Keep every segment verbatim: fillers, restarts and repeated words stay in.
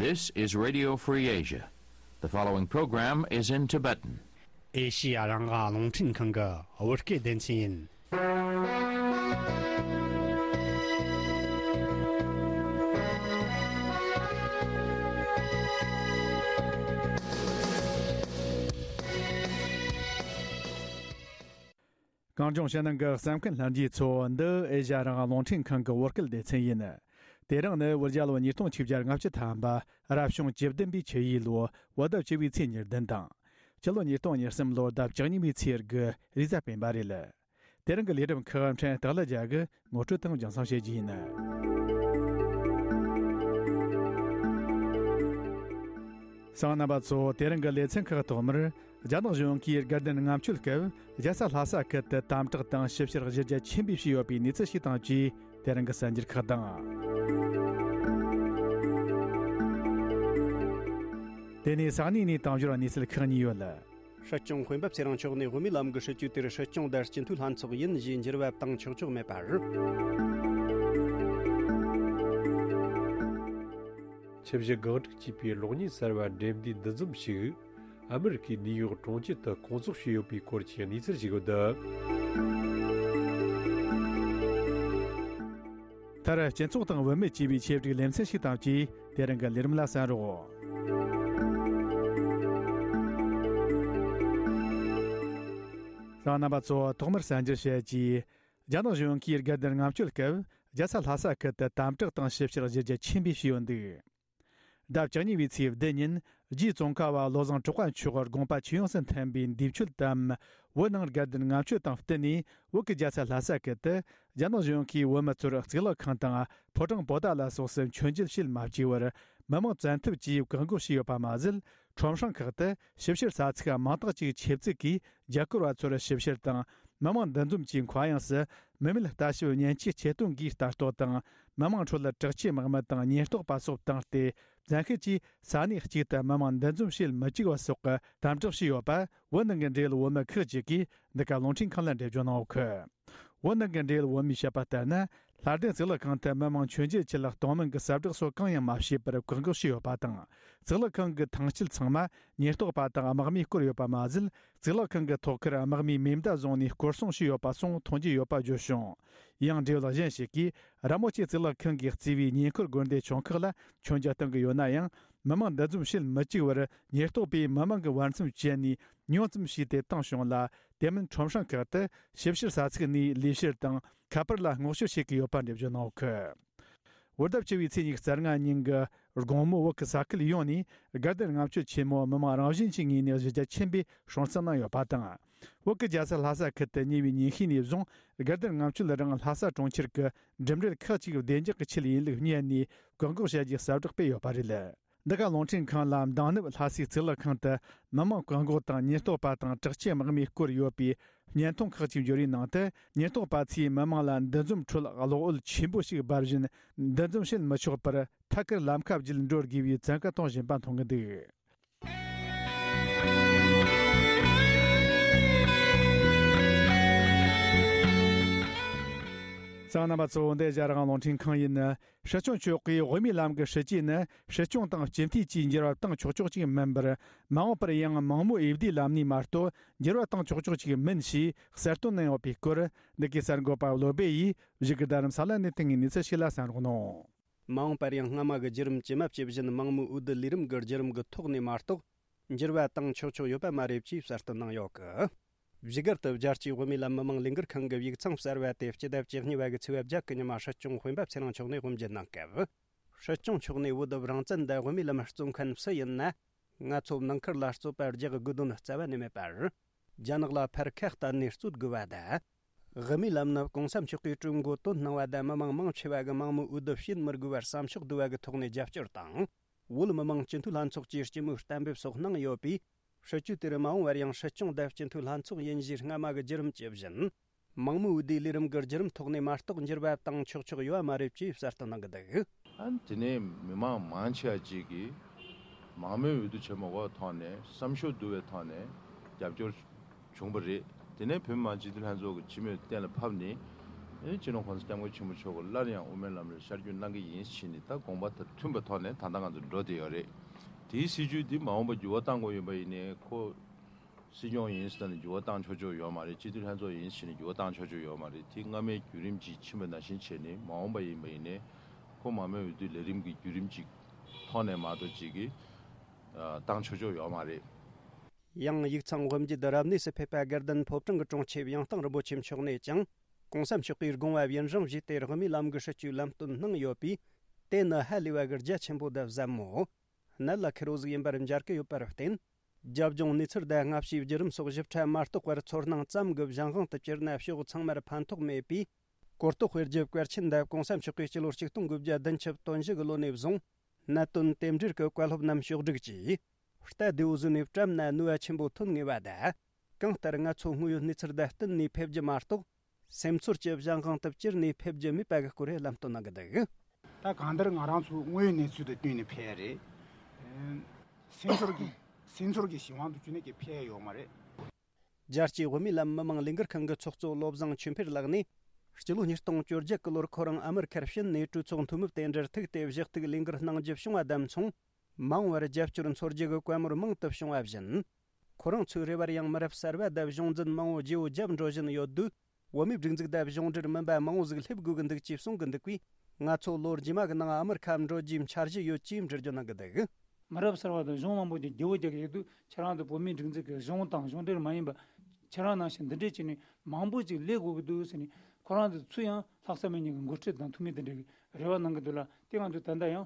This is Radio Free Asia. The following program is in Tibetan. ཨེ་ཤི་ཡ་རང་དབང་རླུང་འཕྲིན་ཁང་གི་བོད་སྐད་སྡེ་ཚན་ཡིན། གངས་ལྗོངས་ཕྱི་ནང་གི་གསན་མཁན་ལྷན་རྒྱས་ཚོ། འདི་ཨེ་ཤ་ཡ་རང་དབང་རླུང་འཕྲིན་ཁང་གི་བོད་སྐད་སྡེ་ཚན་ཡིན། དེ་རིང་ནི་བོད་རྒྱལ་ལོ་ཉིས་སྟོང་ཆིག་བརྒྱ་ལྔ་བཅུ་ཐམ་པ། རབ་བྱུང་བཅུ་བདུན་པའི་ཆུ་ཡོས་ལོ། བོད་ཟླ་བཅུ་བའི་ཚེས་ཉེར་བདུན་དང་། སྤྱི་ལོ་ཉིས་སྟོང་ཉེར་གསུམ་ལོར་ཟླ་བཅུ་གཉིས་པའི་ཚེས་དགུ་རེས་གཟའ་སྤེན་པ་རེད། དེ་རིང་གི་ལས་རིམ་ཁག་ཕྲན་སྟག་ལྷ་རྒྱལ་གྱིས་ངོ་སྤྲོད་དང་རྒྱང་སྲིང་བྱེད་རྒྱུ་ཡིན། གསན་མཁན་རྣམ་པ་ཚོ། དེ་རིང་གི་ལེ་ཚན་ཁག་ཐོག་མར། རྒྱ་ནག་གཞུང་གིས་དགའ་ལྡན་ལྔ་མཆོད་སྐབས་རྒྱལ་ས་ལྷ་ས་ཁུལ་དུ་དམ་དྲག་དང་ཞིབ་བཤེར་གཞི་རྒྱ་ཆེན་པོས་བྱས་ཡོད་པའི་གནས་ཚུལ་ཞིག་དང་བཅས། དེ་རིང་གི་གསར་འགྱུར་ཁག་དང་། དེ་ནས་ས་གནས་ནས་དང་ཞོར་གནས་ཚུལ་ཁག་གཉིས་ཡོད། སྲིད་སྐྱོང་དཔོན་པོ་ཚེ་རིང་མཆོག་ནས་བོད་མིའི་ལམ་གྱི་སྲིད་ཇུས་དེར་སྲིད་སྐྱོང་དང་སྤྱི་འཐུས་ལྷན་ཚོགས་ཡིན་ཞེས་འགྱུར་བ་བཏང་ཆོག་ཆོག་མེད་པ་རེད། ཆུ་བཞི་སྒང་དྲུག་ཅེས་པའི་གློག་བརྙན་གསར་བ་འགྲེམས་འདུས་འདུ་འཛོམས་ཤིག་ཨ་མི་རི་ཀའི་ནིའུ་ཡོག་གྲོང་ཁྱེར་དུ་སྐོང་ཚོགས་བྱས་ཡོད་པའི་སྐོར་གྱི་གནས་ཚུལ་ཞིག་ཡོད། མཐར་སྤྱི་ཚོགས་དང་བུད་མེད་ཅེས་པའི་ཆེད་བསྒྲིགས་ལེ་ཚན་ཞིག་དང་བཅས། དེ་རིང་གི་ལས་རིམ་ལ་གསན་རོགས། གསན་མཁན་རྣམ་པ་ཚོ། ཐོག་མར་གསར་འགྱུར་བཤད་རྒྱུ། རྒྱ་ནག་གཞུང་གིས་དགའ་ལྡན་ལྔ་མཆོད་སྐབས་རྒྱལ་ས་ལྷ་ས་ཁུལ་དུ་དམ་དྲག་དང་ཞིབ་བཤེར་གཞི་རྒྱ་ཆེན་པོས་བྱས་ཡོད་འདུག་ཟླ་བཅུ་གཉིས་པའི་ཚེས་བདུན་ཉིན་རྗེ་ཙོང་ཁ་པ་བློ་བཟང་གྲགས་པ་མཆོག་དགོངས་པ་ཇི་ཡོངས་སུ་མཐུན་པའི་འདས་མཆོད་དམ། བོད་ནང་དགའ་ལྡན་ལྔ་མཆོད་དང་བསྟུན་ནས། བོད་ཀྱི་རྒྱལ་ས་ལྷ་ས་ཁུལ་དུ་རྒྱ་ནག་གཞུང་གིས་བོད་མི་ཚོར་གཙུག་ལག་ཁང་དང་ཕོ་བྲང་པོ་ཏཱ་ལ་སོགས་སུ་མཆོད་མཇལ་བྱེད་མ་བཅུག་པར། མི་མང་བཙན་ཐབས་ཀྱིས་བཀག་འགོག་བྱས་ཡོད་པ་མ་ཟད། ཁྲོམ་སྲང་ཁག་ཏུ་ཞིབ་བཤེར་ས་ཚིགས་མང་དག་ཅིག་ཆེད་བཙུགས་ཀྱིས་རྒྱ་སྐོར་བ་ཚོར་ཞིབ་བཤེར་དང་། མི་མང་འདུ་འཛོམས་ཀྱི་མཁའ་དབྱིངས་སུ་མི་མེད་ལྟ་ཞིབ་མཉེན་ཆས་ཆེད་གཏོང་གིས་ལྟ་རྟོག་དང་། མི་མང་ཁྲོད་དྲག་ཆས་དམག་མི་དང་ཉེན་རྟོག་པ་སོགས་བཏང་སྟེ། བཙན་ཤེད་ཀྱིས་ས་གནས་གཅིག་ཏུ་མི་མང་འདུ་འཛོམས་བྱེད་མི་བཅུག་པ་སོགས་ཀྱི་དམ་དྲག་བྱས་ཡོད་པ། བོད་ནང་གི་འབྲེལ་ཡོད་བོད་མི་ཁག་ཅིག་གིས་འདི་ག་རླུང་འཕྲིན་ཁང་ལ་འགྲེལ་བརྗོད་གནང་ཡོད་ཀི། བོད་ནང་གི་འབྲེལ་ཡོད་བོད་མིས་བཤད་པ་ལྟར་ན། ལྷ་ལྡན་གཙུག་ལག་ཁང་དུ་མི་མང་མཆོད་མཇལ་ཆེད་གཏོང་མིན་གྱི་གསལ་བསྒྲགས་སོགས་གང་ཡང་མ་བྱས་པར་བཀག་འགོག་བྱས་ཡོད་པ་དང་། གཙུག་ལག་ཁང་གི་ཐང་དཀྱིལ་ཚང་མ་ཉེན་རྟོག་པ་དང་དམག་མིས་བསྐོར་ཡོད་པ་མ་ཟད། གཙུག་ལག་ཁང་གི་ཐོག་ཁར་དམག་མིས་མེ་མདའ་བཟུང་ནས་སྐོར་སྲུང་བྱས་ཡོད་པ་སོགས་མཐོང་རྒྱུ་ཡོད་པ་བརྗོད་བྱུང་། ཡང་འབྲེལ་ཡོད་གཞན་ཞིག་གིས། ར་མོ་ཆེ་གཙུག་ལག་ཁང་གིས་གཙོས་པའི་ཉེ་འཁོར་དགོན་སྡེ་ཆུང་ཁག་ལ་མཆོད་མཇལ་གཏོང་གི་ཡོད་ན་ཡང་། མི་མང་འདུ་འཛོམས་བྱེད་མི་བཅུག་པར་ཉེན་རྟོག་པས་མི་མང་གི་བར་མཚམས་བཅད་ནས་ཉུང་ཙམ་བྱས་ཏེ་བཏང་བྱུང་ལ། དེ་མིན་ཁྲོམ་སྲང་ཁག་ཏུ་ཞིབ་བཤེར་ས་ཚིགས་ནས་ལས་བྱེད་དང་ཁ་པར་ལ་སྔོག་བཤེར་བྱེད་ཀྱི་ཡོད་པ་འགྲེལ་བརྗོད་གནང་ཡོད་ཀི། བོད་ཟླ་བཅུ་བའི་ཚེས་ཉི་ཤུ་རྩ་ལྔ་ཉིན་གྱི་དགོང་མོ་བོད་ཀྱི་ས་ཁུལ་ཡོངས་ནས་དགའ་ལྡན་ལྔ་མཆོད་ཆེན་མོ་མི་མང་རང་བཞིན་གྱི་ངོས་ནས་གཞི་རྒྱ་ཆེན་པོས་སྲུང་བརྩི་གནང་ཡོད་པ་དང་། བོད་ཀྱི་རྒྱལ་ས་ལྷ་ས་ཁུལ་དུ་ཉེ་བའི་ཉིན་ཤས་ནས་བཟུང་དགའ་ལྡན་ལྔ་མཆོད་རང་ལྷ་ས་གྲོང་ཁྱེར་གྱི་འགྲིམ་འགྲུལ་ཁག་ཅིག་བདེ་འཇགས་ཀྱི་ཆེད་ཡིན་ལུགས་བསྙད་ནས་བཀག་འགོག་བྱ་རྒྱུའི་གསལ་བསྒྲགས་སྤེལ་ཡོད་པ་རེད། འདི་ག་རླུང་འཕྲིན་ཁང་ལ་མདང་ནུབ་ལྷ་སའི་གཙུག་ལག་ཁང་དུ་མི་མང་བཀག་འགོག་དང་ཉེན་རྟོག་པ་དང་དྲག་ཆས་དམག་མིས་བསྐོར་ཡོད་པའི་བརྙན་ཐུང་ཁག་ཅིག་འབྱོར་བའི་ནང་དུ། ཉེན་རྟོག་པ་ཚོས་མི་མང་ལ་འདུ་འཛོམས་ཁྲོད་གློག་འོད་ཆེན་པོ་ཞིག་འབར་བཞིན་འདུ་འཛོམས་བྱེད་མི་ཆོག་པར་ཐད་ཀར་ལམ་ཁ་བརྒྱུད་འགྲོ་དགོས་པའི་བཙན་བཀའ་གཏོང་བཞིན་པ་མཐོང་གི་འདུག། གསན་མཁན་རྣམ་པ་ཚོ། འདི་ཨེ་ཤ་ཡ་རང་དབང་རླུང་འཕྲིན་ཁང་ཡིན། སྲིད་སྐྱོང་མཆོག་གིས་བོད་མིའི་ལམ་གྱི་སྲིད་ཇུས་ནི་སྲིད་སྐྱོང་དང་སྤྱི་འཐུས་བཅས་འགྱུར་བ་བཏང་ཆོག་ཆོག་ཅིག་མིན་པར། མ་འོངས་པར་ཡང་མང་མོས་འོས་བསྡུའི་ལམ་ནས་མ་གཏོགས་འགྱུར་བ་བཏང་ཆོག་ཆོག་ཅིག་མིན་ཞེས་གསལ་སྟོན་གནང་ཡོད་པའི་སྐོར། འདི་གའི་གསར་འགོད་པ་བློ་སྦེ་ཡིས་བཞུགས་སྒར་རྡ་རམ་ས་ལ་ནས་བཏང་བའི་གནས་ཚུལ་ཞིག་ལ་གསན་རོགས་གནང་། མ་འོངས་པར་ཡང་སྔ་མ་གི་བརྒྱུད་རིམ་ཇི་མ་ཇི་བཞིན་མང་མོས་འོས་བསྡུ་ལས་རིམ་གྱི་བརྒྱུད་རིམ་གྱི་ཐོག་ནས་མ་གཏོགས། འགྱུར་བ་བཏང་ཆོག་ཆོག་ཡོད་པ་མ་རེད་ཅེས་གསལ་སྟོན་གནང་ཡོད་གི། བཞུགས་སྒར་དུ་རྒྱལ་སྤྱིའི་བོད་མིའི་ལམ་མི་མང་ལས་འགུལ་ཁང་གི་ཡིག་ཚང་གསར་བ་དེ་སྤྱི་ཟླ་བཅུ་གཉིས་པ་གི་ཚེས་པ་བརྒྱད་ཀྱི་ཉི་མ་སྲིད་སྐྱོང་དཔོན་པོ་ཚེ་རིང་མཆོག་ནས་དབུ་འབྱེད་གནང་སྐབས། སྲིད་སྐྱོང་མཆོག་ནས་འོས་བསྡུ་རང་བཙན་དང་བོད་མིའི་ལམ་རྩོད་མཁན་སུ་ཡིན་ན། ང་ཚོ་ནང་ཁུལ་ལ་རྩོད་པ་རྒྱག་དགོས་དོན་རྩ་བ་ནས་མེད་པར། རྒྱ་ནག་ལ་ཕར་ཁ་གཏད་ནས་རྩོད་དགོས་པ་དང་། དབུ་མའི་ལམ་ནི་གོང་ས་མཆོག་གིས་གྲོས་འགོ་བཏོན་གནང་བ་དང་མི་མང་མང་ཆེ་བ་གིས་མང་མོས་འོས་བསྡུ་བྱེད་མི་དགོས་པར་བསམ་ཕྱོགས་བསྡུ་བ་གི་ཐོག་ནས་རྒྱབ་སྐྱོར་དང་། བོད་མི་མང་སྤྱི་འཐུས་ལྷན་ཚོགས་ཀྱིས་སྤྱི་མོས་གཏན་འབེབས་སོགས་གནང་ཡོད་པས། སྲིད་ཇུས་དེར་མ་འོངས་པར་ཡང་སྲིད་སྐྱོང་དང་སྤྱི་འཐུས་ལྷན་ཚོགས་ཡིན་གཞིའི་སྔ་མ་གི་བརྒྱུད་རིམ་ཇི་བཞིན། མང་མོས་འོས་བསྡུའི་ལས་རིམ་གྱི་བརྒྱུད་རིམ་ཐོག་ནས་མ་གཏོགས་འགྱུར་བ་བཏང་ཆོག་ཆོག་ཡོད་པ་མ་རེད་ཅེས་གསལ་སྟོན་གནང་གི་འདུག། ཨ་ནི་དེ་ནས་མི་མང་མང་ཆེ་བ་ཅིག་གིས་མང་མོས་འོས་བསྡུ་བྱེད་མ་དགོས་པའི་ཐོག་ནས་བསམ་ཤོག་བསྡུ་བའི་ཐོག་ནས་རྒྱབ་སྐྱོར་བྱུང་བ་རེད། དེ་ནས་བོད་མི་མང་སྤྱི་འཐུས་ལྷན་ཚོགས་ཀྱི་སྤྱི་མོས་གཏན་ལ་ཕབ་ནས་ ཨེ་སྤྱི་ནོར་༸གོང་ས་༸སྐྱབས་མགོན་ཆེན་པོ་མཆོག་གིས་སླར་ཡང་དབུ་མའི་ལམ་ལ་ཤར་བསྐྱོད་གནང་གི་ཡིན་ཞེས་ནས། ད་དགོངས་པ་དང་མཐུན་པའི་ཐོག་ནས་ད་ལྟ་ང་ཚོ་འགྲོ་བསྡད་ཡོད་རེད། དེའི་སྲིད་བྱུས་འདི་མ་འོངས་པ་འགྱུར་བ་གཏང་དགོས་ཡོད་པ་ཡིན་ནའི། ཁོ་སྲིད་སྐྱོང་ཡིན་ཟེར་ནས་འགྱུར་བ་བཏང་ཆོག་ཆོག་ཡོད་མ་རེད། སྤྱི་འཐུས་ལྷན་ཚོགས་ཡིན་ཟེར་ནས་འགྱུར་བ་བཏང་ཆོག་ཆོག་ཡོད་མ་རེད། དེ་སྔ་མའི་བརྒྱུད་རིམ་ཅིག་ཕྱིན་པ་ནང་བཞིན་བྱས་ནས། མ་འོངས་པ་ཡིན་པ་ཡིན་ནའི་ཁོ་མང་མོས་འོས་བསྡུའི་ལས་རིམ་གྱི་བརྒྱུད་རིམ་ཅིག་ཐོག་ནས་མ་གཏོགས་ཅིག་གིས་བཏང་ཆོག་ཆོག་ཡོད་མ་རེད། ཡང་ཡིག་ཚང་དབུ་འབྱེད་རབ་གནས་སུ་ཕེབས་པ་དགའ་ལྡན་ཕོ་བྲང་གི་དྲུང་ཆེ་ཡང་སྟེང་རིན་པོ་ཆེ་མཆོག་ནས་ཀྱང་།༸གོང་ས་མཆོག་གིས་དགོངས་པ་ཡུན་རིང་བཞེས་ཏེ་དབུ་མའི་ལམ་གྱི་སྲིད་བྱུས་ལམ་སྟོན་གནང་ཡོད་པས། དེ་ནི་ཧ་ལས་པ་གི་རྒྱ་ཆེན་པོ་དང་ཟབ་མོ། གནད་ལ་འཁེལ་བོ་ཟིག་ཡིན་པར་མཇལ་གྱི་ཡོད་པར་བརྟེན། རྒྱབ་ལྗོངས་གནས་ཚུལ་དང་སྔ་ཕྱིའི་བརྒྱུད་རིམ་སོགས་ཞིབ་ཕྲ་མ་རྟོགས་པར་ཚོར་སྣང་ཙམ་གྱི་གཞན་དབང་དུ་གྱུར་ན་ཕྱོགས་ཚང་མར་ཕན་ཐོགས་མེད་པས། གོ་རྟོགས་སྤེལ་རྒྱུ་གལ་ཆེན་འདི་༸གོང་ས་མཆོག་གིས་སྤྱི་ལོ་ཆིག་སྟོང་དགུ་བརྒྱ་བདུན་ཅུ་དོན་བཞི་གི་ལོ་ནས་བཟུང་། གནད་དོན་དེ་འབྲེལ་གྱི་བཀའ་སློབ་རྣམས་ཕྱོགས་བསྒྲིགས་ཀྱིས། རྟ་རྡེའུ་བཟོས་ནས་བཀྲམ་ན་ནུས་པ་ཆེན་པོ་ཐོན་ངེས་པ་དང་། གང་ལྟར་ང་ཚོ་དངོས་ཡོད་གནས་ཚུལ་དང་བསྟུན་ནས་ཕེབས་རྒྱུ་མ་གཏོགས། སེམས་ཚོར་གྱི་གཞན་དབང་དུ་གྱུར་ནས་ཕེབས་རྒྱུ་མེད་པ་གི་སྐོར་ལམ་སྟོན་གནང་གི་འདུག་ད་གང་ལྟར་ང་རང་ཚོ་དངོས་ཡོད་གནས་ཚུལ་དང་བསྟུན་ནས་ཕེབས་རེད། སེམས་ཚོར་གྱི་སེམས་ཚོར་གྱི་གཞན་དབང་དུ་གྱུར་ནས་ཀྱི་ཕེབས་ཡོད་མ་རེད། རྒྱལ་སྤྱིའི་དབུ་མའི་ལམ་མི་མང་ལས་འགུལ་ཁང་གི་ཚོགས་གཙོ་བློ་བཟང་ཆོས་འཕེལ་ལགས་ནས། སྤྱི་ལོ་ཉིས་སྟོང་བཅོ་བརྒྱད་གི་ལོར་ཁོ་རང་ཨ་མེ་རི་ཁར་ཕྱིན་ནས་གྲོས་ཚོགས་འཐུས་མི་དེ་འདྲར་ཐུག་སྟེ་བཞེས་གཏུག་ལས་འགུལ་གནང་རྒྱུ་བྱུང་བ་དང་མཚུངས། མ་འོངས་པར་རྒྱབ་སྐྱོར་འཚོལ་རྒྱུ་གི་བཀའ་མོལ་མང་དུ་བྱུང་བ་བཞིན། ཁོ་རང་ཚོའི་རེ་བར་ཡང་མི་རབས་གསར་པ་དང་གཞུང་འཛིན་མང་བོ་བརྗེ་བོ་བརྒྱབ་འགྲོ་བཞིན་ཡོད་དུས། བོད་མིའི་སྒྲིག་འཛུགས་དང་གཞུང་འབྲེལ་མིན་པ་མང་བོ་ཟིག་སླེབས་དགོས་ཀྱི་འདུག་ཅེས་གསུང་གི་འདུག་པས། ང་ཚོ་ལོ་རྗེས་མ་གི་ནང་ཨ་མེ་རི་ཁར་འགྲོ་རྒྱུའི་འཆར་གཞི་ཡོད་ཅེས་འགྲེལ་བརྗོད་གནང་གི་འདུག་མི་རབས་གསར་པ་དང་གཞུང་མང་པོ་ཅིག་བརྗེ་བོ་རྒྱག་གི་ཡོད་དུས། ཁྱེད་རང་ཚོ་བོད་མིའི་སྒྲིག་འཛུགས་ཀྱི་གཞུང་དང་གཞུང་འབྲེལ་མ་ཡིན་པ། ཁྱེད་རང་ནང་བཞིན་འདི་འདྲས་བྱས་ནས་མང་པོ་ཅིག་སླེབས་དགོས་ཀྱི་འདུག་ཟེར་ནས། ཁོ་རང་ཚོ་ཚུར་ཡང་ལྷག་བསམ་མེད་མཁན་གྱི་འགོ་ཁྲིད་དང་འཐུས་མི་དེ་འདྲས་ཀྱི་རེ་བ་གནང་གི་འདུག་ལ། དེ་ང་ཚོས་ད་ལྟ་ཡང་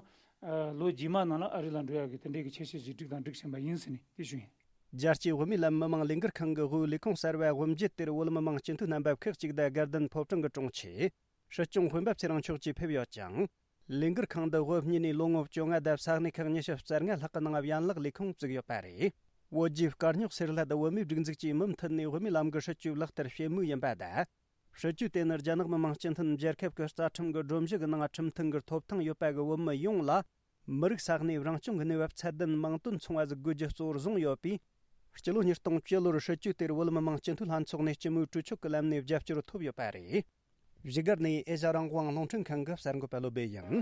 ལོ་རྗེས་མ་ནང་ལ་ཨ་རི་ལ་འགྲོ་ཡག་གི་དེ་འདྲས་ཀྱི་ཆེད་བཤད་ཅིག་བསྒྲིགས་དང་སྒྲིག་བཞིན་པ་ཡིན་ཟེར་ནས་དེ་ཞུ་ཡིན། རྒྱལ་སྤྱིའི་བོད་མིའི་ལམ་མི་མང་ལས་འགུལ་ཁང་གི་དབུས་ལས་ཁུངས་གསར་བའི་དབུ་འབྱེད་དེར་བོད་མི་མང་སྤྱི་འཐུས་རྣམ་པ་ཁག་ཅིག་དང་དགའ་ལྡན་ཕོ་བྲང་གི་དྲུང་ཆེ། སྲིད་སྐྱོང་སྤེན་པ་ཚེ་རིང་མཆོག་བཅས་ཕེབས་ཡོད་ཅིང་། ལས་འགུལ་ཁང་འདི་དབུ་བརྙེས་ནས་ལོ་ངོ་བཅོ་ལྔ་དང་ས་གནས་ཁག་ཉི་ཤུ་རྩ་ལྔ་ལྷག་གི་ནང་ཡན་ལག་ལས་ཁུངས་བཙུགས་ཡོད་པ་རེད། བོད་བརྒྱུད་དཀར་རྙོག་སེལ་སླད་བོད་མིའི་སྒྲིག་འཛུགས་ཀྱིས་མུ་མཐུད་ནས་བོད་མིའི་ལམ་གྱི་སྲིད་བྱུས་ལག་བསྟར་བྱེད་མུས་ཡིན་པ་དང་། སྲིད་བྱུས་དེ་ནི་རྒྱ་ནག་མི་དམངས་སྤྱི་མཐུན་རྒྱལ་ཁབ་ཀྱི་རྩ་ཁྲིམས་ཀྱི་སྒྲོམ་གཞི་གི་ནང་ཁྲིམས་མཐུན་གྱི་ཐོབ་ཐང་ཡོད་པ་གི་བོད་མི་ཡོངས་ལ། མི་རིགས་ས་གནས་རང་སྐྱོང་གི་གནས་བབ་ཚད་ལྡན་མིང་དོན་མཚུངས་པ་ཟིག་དགོས་རྒྱུ་གཙོ་བོར་བཟུང་ཡོད་པས། སྤྱི་ལོ་ཉིས་སྟོང་བཅུ་ལོར་སྲིད་བྱུས་དེར་བོད་མི་མང་སྤྱི་འཐུས་ལྷན་ཚོགས་ནས་སྤྱི་མོས་གྲོས་ཆོད་ཀྱི་ལམ་ནས་རྒྱབ་སྐྱོར་ཐོབ་ཡོད་པ་རེད། བཞུགས་སྒར་ནས་ཨེ་ཤ་རང་དབང་རླུང་འཕྲིན་ཁང་གི་གསར་འགོད་པ་བློ་སྦེ་ཡིན།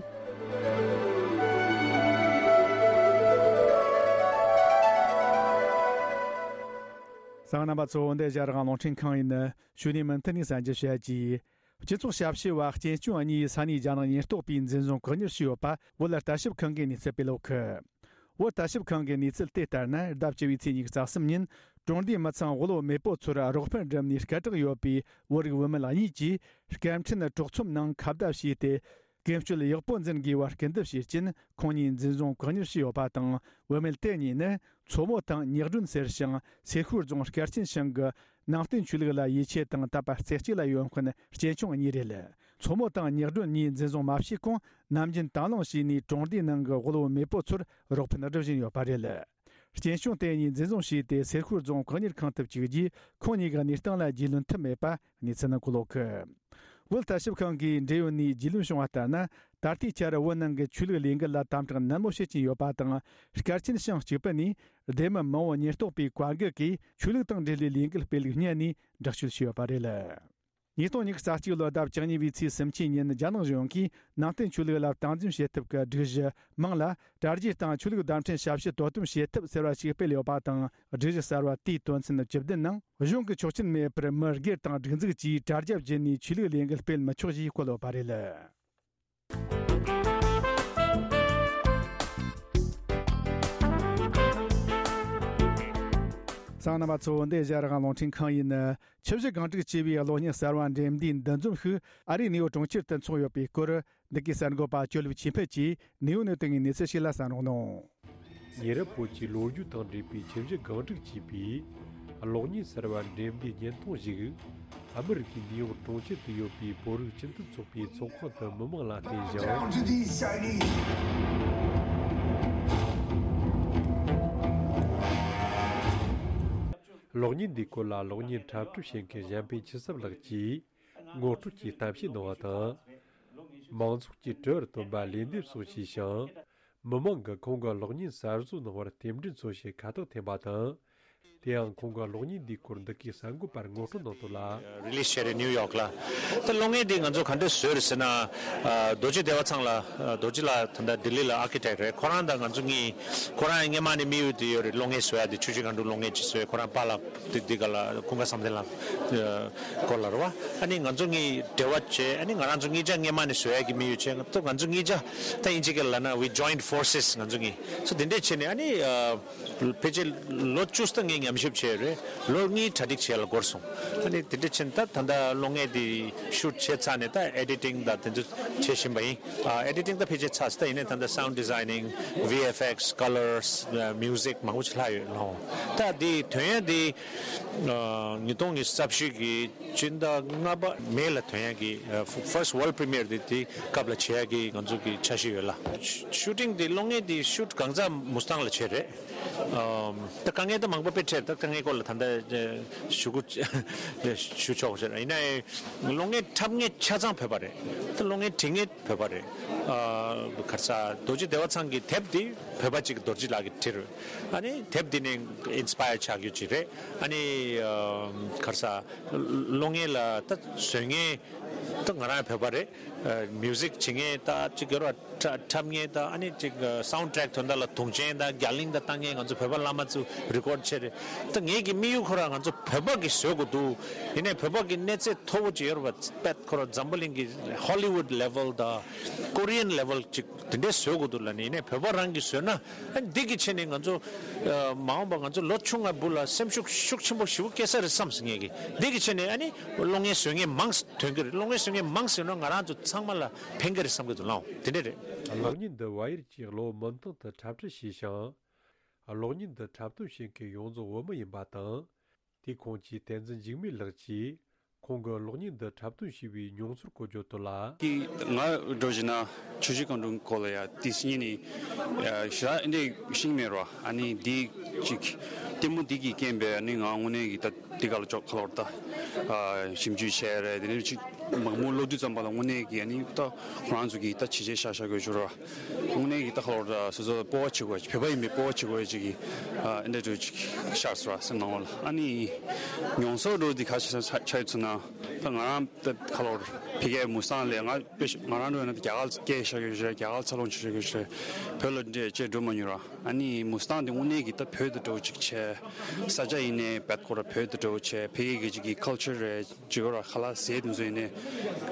གསན་མཁན་རྣམ་པ་ཚོ། འདི་ཨེ་ཤ་རང་དབང་རླུང་འཕྲིན་ཁང་ཡིན། ཞུ་ནས་མུ་མཐུད་ནས་གསན་རྒྱུ་བྱ་རྒྱུ། སྤྱི་ཚོགས་ཞབས་ཞུ་བ་གཅེན་གཅུང་གཉིས་ས་གནས་རྒྱ་ནག་ཉེན་རྟོག་པས་འཛིན་བཟུང་བཀག་ཉར་བྱས་ཡོད་པ་བོད་ལ་ལྟ་ཞིབ་ཁང་གིས་གནས་ཚུལ་སྤེལ་ཡོད་གི། བོད་ལྟ་ཞིབ་ཁང་གི་གནས་ཚུལ་དེ་ལྟར་ན། ཟླ་བཅུ་བའི་ཚེས་ཉི་ཤུ་རྩ་གསུམ་ཉིན་གྲོང་སྡེའི་མི་ཚང་དབུལ་བོ་མེས་པོ་ཚོར་རོགས་ཕན་སྒྲུབ་ནས་སྐད་གྲགས་ཡོད་པའི་བོད་རིགས་བུད་མེད་གཉིས་ཀྱིས་སྐད་འཕྲིན་གྲོགས་ཚོམ་ནང་ཁ་བརྡ་བྱས་ཏེ། ཀུན་སྤྱོད་ཡག་པོ་འཛིན་དགོས་པར་སྐུལ་འདེབས་བྱས་རྐྱེན། ཁོང་གཉིས་འཛིན་བཟུང་བཀག་ཉར་བྱས་ཡོད་པ་དང་། བུད་མེད་དེ་གཉིས་ནི་མཚོ་མོ་དང་ཉག་སྒྲོན་ཟེར་ཞིང་། སེ་ཤུལ་རྫོང་སྐར་ཆེན་ཞང་གི་ནང་བསྟན་ཆོས་ལུགས་ལ་ཡིད་ཆེས་དང་དད་པ་རྩེ་གཅིག་ལ་ཡོད་མཁན་གཅེན་གཅུང་གཉིས་རེད། མཚོ་མོ་དང་ཉག་སྒྲོན་གཉིས་འཛིན་བཟུང་མ་བྱས་གོང་། ནམ་རྒྱུན་དང་བླངས་བྱས་ནས་གྲོང་སྡེའི་ནང་གི་དབུལ་བོ་མེས་པོ་ཚོར་རོགས་ཕན་སྒྲུབ་བཞིན་ཡོད་པ་རེད། གཅེན་གཅུང་དེ་གཉིས་འཛིན་བཟུང་བྱས་ཏེ། སེ་ཤུལ་རྫོང་བཀག་ཉར་ཁང་དུ་བཅུག་རྗེས། ཁོང་གཉིས་ཀྱི་གནས་སྟངས་ལ་རྒྱུས་ལོན་ཐུབ་མེད་པ་གནས་ཚུལ་ནང་འཁོད་ཡོད་གི། བོད་ལྟ་ཞིབ་ཁང་གིས་འབྲེལ་ཡོད་ནས་རྒྱུས་ལོན་བྱུང་བ་ལྟར་ན། ད་ལྟའི་ཆར་བོད་ནང་གི་ཆོས་ལུགས་ལས་འགུལ་ལ་དམ་དྲག་ནན་མོ་བྱེད་ཀྱིན་ཡོད་པ་དང་། སྐར་ཆེན་ཞང་གཅིག་པུ་ནས་སྡེ་མི་མང་བོ་ཉེན་རྟོག་པའི་བཀའ་འགུག་གིས་ཆོས་ལུགས་དང་འབྲེལ་བའི་ལས་འགུལ་སྤེལ་ལུགས་སྙད་ནས་དྲག་གཅོད་བྱས་ཡོད་པ་རེད། ཉིས་སྟོང་ཉི་ཤུ་རྩ་གཅིག་ལོའི་ཟླ་བཅུ་གཉིས་པའི་ཚེས་སུམ་ཅུ་ཉིན། རྒྱ་ནག་གཞུང་གིས་ནང་བསྟན་ཆོས་ལུགས་ལ་སྟངས་འཛིན་བྱེད་ཐབས་ཀྱི་སྒྲིག་གཞི་མིང་ལ། དྲ་རྒྱའི་སྟེང་ཆོས་ལུགས་བརྡ་འཕྲིན་ཞབས་ཞུ་དོ་དམ་བྱེད་ཐབས་ཟེར་བ་ཞིག་སྤེལ་ཡོད་པ་དང་། སྒྲིག་གཞི་གསར་བ་དེའི་དོན་ཚན་བཅུ་བདུན་ནང་། གཞུང་གི་ཆོག་མཆན་མེད་པར་མི་སྒེར་དང་སྒྲིག་འཛུགས་ཀྱིས་དྲ་རྒྱ་བརྒྱུད་ནས་ཆོས་ལུགས་ལས་འགུལ་སྤེལ་མི་ཆོག་ཅེས་བཀོད་ཡོད་པ་རེད། གསན་མཁན་རྣམ་པ་ཚོ། འདི་ཨེ་ཤ་ཡ་རང་དབང་རླུང་འཕྲིན་ཁང་ཡིན། ཆུ་བཞི་སྒང་དྲུག་ཅེས་པའི་གློག་བརྙན་གསར་བ་འགྲེམས་འདིའི་འདུ་འཛོམས་ཤིག་ཨ་རིའི་ནིའུ་ཡོག་གྲོང་ཁྱེར་དུ་འཚོགས་ཡོད་པའི་སྐོར། འདི་གའི་གསར་འགོད་པ་ཇོ་ལེབ་ཆོས་འཕེལ་གྱིས་ནིའུ་ཡོག་ནས་བཏང་བའི་གནས་ཚུལ་ཞིག་ལ་གསན་རོགས་གནང་། ཉེ་རབས་བོད་ཀྱི་ལོ་རྒྱུས་དང་འབྲེལ་བའི་ཆུ་བཞི་སྒང་དྲུག་ཅེས་པའི་གློག་བརྙན་གསར་བ་འགྲེམས་འདིའི་བརྙན་ཐུང་ཞིག་ཨ་མི་རི་ཀའི་ནིའུ་ཡོག་གྲོང་ཁྱེར་དུ་ཡོད་པའི་བོད་རིགས་སྤྱི་མཐུན་ཚོགས་པའི་ཚོགས་ཁང་དུ་མི་མང་ལ་བསྟན་ཞིང་། གློག་བརྙན་འདིའི་སྐོར་ལ་གློག་བརྙན་འཁྲབ་སྟོན་བྱེད་མཁན་གཞན་ཕན་ཆོས་བསམ་ལགས་ཀྱིས་ངོ་སྤྲོད་ཀྱི་གཏམ་བཤད་གནང་བ་དང་། མང་ཚོགས་ཀྱིས་དྲི་བར་བཏོན་པ་ལན་འདེབས་སོགས་བྱས་ཤིང་། མི་མང་གིས་ཁོང་གི་གློག་བརྙན་གསར་བཟོ་གནང་བར་རྟེན་འབྲེལ་མཚོན་ཆེད་ཁ་བཏགས་འཐེན་པ་དང་། དེ་ཡང་ཁོང་གི་གློག་བརྙན་འདིའི་སྐོར་འདི་གའི་གསར་འགོད་པར་ངོ་སྤྲོད་གནང་དོན་ལ། རི་ལིས་བྱས་རེད་ནིའུ་ཡོག་ལ། ད་གློག་བརྙན་འདི་ང་ཚོ་ག་འདྲས་བཟོས་རེད་ཟེར་ན། ཨ། རྡོ་རྗེ་བདེ་བ་ཚང་ལ། ཨ། རྡོ་རྗེ་ལགས་ད་ལྟ་ལྡི་ལི་ལ་ཨར་ཀི་ཊེག་རེད། ཁོ་རང་དང་ང་ཚོ་གཉིས། ཁོ་རང་སྔས་མ་ནས་དམིགས་ཡུལ་དེ་ཡོད་རེད། གློག་བརྙན་བཟོ་ཡ་དེ། ཆུ་བཞི་སྒང་དྲུག་གློག་བརྙན་ཅིག་བཟོས། ཁོ་རང་པཱ་ལགས་དེ་འདི་ག་ལ་ཀུན་དགའ་བསམ་གཏན་ལགས་སྐོར་ལ་རེད་བ། ཨ་ནི་ང་ཚོ་གཉིས་འབྲེལ་བ་བྱས། ཨ་ནི་ང་རང་ཚོ་གཉིས་ཆ་སྔས་མ་ནས་བཟོ་ཡ་གི་དམིགས་ཡུལ་བྱས། ང་ཚོ་ང་ཚོ་གཉིས་ཆ་ད་དབྱིན་ཇི་སྐད་ལ་ལབ་ན། we joined forces. ང་ཚོ་གཉིས་སོ་དེ་འདྲས་བྱས་ནས། ཨ་ནི། ཨ། ཕལ་ཆེར་ལོ་བཅུ་ཙམ་ངས་ཉམས་ཞིབ་བྱས་རེད། ལོ་གཉིས་གྲ་སྒྲིག་བྱས་ལ་འགོར་སོང་། ཨ་ནི་དེ་འདྲ་བྱས་ནས་ད་ད་ལྟ་གློག་བརྙན་དེ་ཤུ་ཊི་བྱས་ཚར་ནས། ད་ཨེ་ཌི་ཊིང་དང་དེ་ཚོ་བྱེད་བཞིན་པ་ཡིན། ཨ། ཨེ་ཌི་ཊིང་ད་ཕལ་ཆེར་ཚར་སོང་། ད་ཡིན་ནའི་ད་ལྟ་sound designing, V F X, colors, ཨ། music མང་པོ་ཅིག་ལྷག་ཡོད་ལོ། ད་དེ་ཐོན་ཡ་དེ། ཨ། ཉིས་སྟོང་ཉི་ཤུ་རྩ་བཞི་གི་སྤྱི་ཟླ་ལྔ་པ་མེ་ལ་ཐོན་ཡ་གི། ཨ། first world premiere དེ་དེ་སྐབས་ལ་བྱེད་ཡ་གི་ང་ཚོ་གི་འཆར་གཞི་ཡོད་ལ། ཤུ་ཊིང་དེ་གློག་བརྙན་དེ་ཤུ་ཊི་གང་ཚ་མུ་སི་ཐང་ལ་བྱས་རེད། ཨམ། ད་དཀའ་ངལ་ད་མང་པོ་དཔེ་འཕྲད། ད་དཀའ་ངལ་སྐོར་ལ་ད་ལྟ་ཞུ་དགོས་ཞུ་ཆོག་ཟེར། ཡིན་ནའི་གློག་བརྙན་འཁྲབ་མཁན་ཆ་ཚང་བོད་པ་རེད། ད་གློག་བརྙན་འབྲི་མཁན་བོད་པ་རེད། ཨ། ག་རེ་ཟ། རྡོ་རྗེ་བདེ་བ་ཚང་གི་དེབ་འདི་བོད་པ་གཅིག་རྡོ་རྗེ་ལགས་ཀྱིས་བྲིས་རེད། ཨ་ནི་དེབ་འདི་ནས་ཨིན་སི་པ་ཡར་ཆགས་རྒྱུ་ཅིག་རེད། ཨ་ནི། ཨ། ག་རེ་ཟ། གློག་བརྙན་ལ་ད་བཟོ་མཁན་ད་ང་རང་བོད་པ་རེད། ཨ། མིའུ་ཟིག་བྱེད་མཁན་ད་གཅིག་ཡོད་རེད་བ། འཁྲབ་མཁན་དང་། ཨ་ནི་གཅིག་སའུན་ཌི་ཊེག་ཐོན་ད་ལ་དུང་ཆེན་དང་རྒྱ་གླིང་དང་བཏང་མཁན་ང་ཚོ་བོད་པ་བླ་མ་ཚོ་རི་ཀོཌ་བྱས་རེད། ད་ངེད་ཀྱི་དམིགས་ཡུལ་ཁོ་རང་ང་ཚོ་བོད་པ་གིས་བཟོ་དགོས་འདུག་ཡིན་ནའི་བོད་པ་གི་གནས་ཚད་མཐོ་པོ་ཅིག་ཡོད་རེད་བ། དཔེ་ཁོ་རང་འཛམ་བུ་གླིང་གི་ཧོ་ལི་ཝུཌ་ལེ་ཝལ་དང་ཀོ་རི་ཡན་ལེ་ཝལ་ཅིག་དེ་འདྲའི་བཟོ་དགོས་འདུག་ལབ་ནས། ཡིན་ནའི་བོད་པ་རང་གིས་བཟོས་ན། ཨ་ནི་འདི་གི་ཆེད་ནས་ང་ཚོ། ཨ། མ་འོངས་པ་ང་ཚོ་ལོ་ཆུང་ང་བུ་ལ་སེམས་ཤུགས་ཤུགས་ཆེན་པོ་ཞེ་པོ་སྐྱེ་ས་རེད་བསམ་སོང་ངེད་ཀྱིས། འདི་གི་ཆེད་ནས་ཨ་ནི་གློག་བརྙན་བཟོ་མཁན་མང་ཐོན་གྱི་རེད། གློག་བརྙན་བཟོ་མཁན་མང་ཟེར་ན་ང་རང་ཚོ་ཚང་མ་ལ་ཕན་གྱི་རེད་བསམ་གྱི་འདུག་ལགས། དེ་འདྲ་རེད། གློག་བརྙན་འདི་ཝ་ཡར་གྱི་གློག་མུ་མཐུད་དུ་འཁྲབ་ཁྲིད་བྱས་ཤིང་། གློག་བརྙན་འདི་འཁྲབ་སྟོན་བྱེད་མཁན་ཡོངས་རྫོགས་བོད་མི་ཡིན་པ་དང་། དེའི་ཁོངས་ཀྱི་བསྟན་འཛིན་འཇིགས་མེད་ལགས་ཀྱིས་ཁོང་གིས་གློག་བརྙན་འདི་འཁྲབ་སྟོན་བྱས་པའི་མྱོང་ཚོར་སྐོར་བརྗོད་དོན་ལ། ཀྱི་ང་འགྲོ་བཞིན་ན་ཆུ་བཞི་སྒང་དྲུག་སྐོར་ལ་ཡ་དེ་སྙིང་ནས་ཞེ་དྲག་འདི་ཤེས་མེད་རོ། ཨ་ནི་འདི་ཅིག་ལྟད་མོ་འདི་གི་རྐྱེན་པས་ཨ་ནི་ང་དངོས་གནས་ཀྱི་ད་འདི་ག་ལ་ཅོག་ཁ་ལོར་ད་ཞིབ་འཇུག་བྱས་རེད། དེ་ནས་ཅིག་མང་པོ་ཀློག་དུས་ཙམ་པ་ལ་དངོས་གནས་ཀྱི་ཨ་ནི་ད་ཁོ་རང་ཚོ་གི་ད་བྱས་རྗེས་བཞག་བཞག་དགོས་བྱུང་རོ། དངོས་གནས་ཀྱི་ད་ཁ་ལོར་ད་སོ་སོ་སྤོབས་པ་བྱེད་དགོས། བོད་པ་ཡིན་པའི་སྤོབས་པ་བྱེད་དགོས་ཅིག་གི་ཨ་འདྲ་འདྲ་ཅིག་ཤར་སོང་ར་སེམས་ནང་ལ། ཨ་ནི་མྱོང་ཚོར་འདྲ་འདི་ག་ཆ་ཆ་ཆ་ཡོད་ཚུལ་ན། ད་ང་རང་ད་ཁ་ལོར་ཕ་གིའི་མུ་སི་ཐང་ལ་ང་དཔེ་ང་རང་འགྲོ་ཡིན་ན་རྒྱ་གར་སྐད་བཤད་ཀྱི་ཡོད་རེད། རྒྱ་གར་འཚར་ལོངས་བྱེད་ཀྱི་ཡོད་རེད། བོད་ལ་འདྲེ་ཅེས་འགྲོ་མ་མྱོང་ར། ཨ་ནི་མུ་སི་ཐང་དེ་དངོས་གནས་ཀྱི་ད་བོད་དུ་འགྲོ་ཅིག་བྱས། ས་ཆ་ཡིན་ནའི་བད་ཁོ་ར་བོད་དུ་འགྲོ་བྱས། ཕ་གི་གི་ཅིག་གི་ཁལ་ཆར་རེད། ཅིག་ར་ཁ་ལག་ཟས་དེ་ཚོ་ཡིན་ནའི་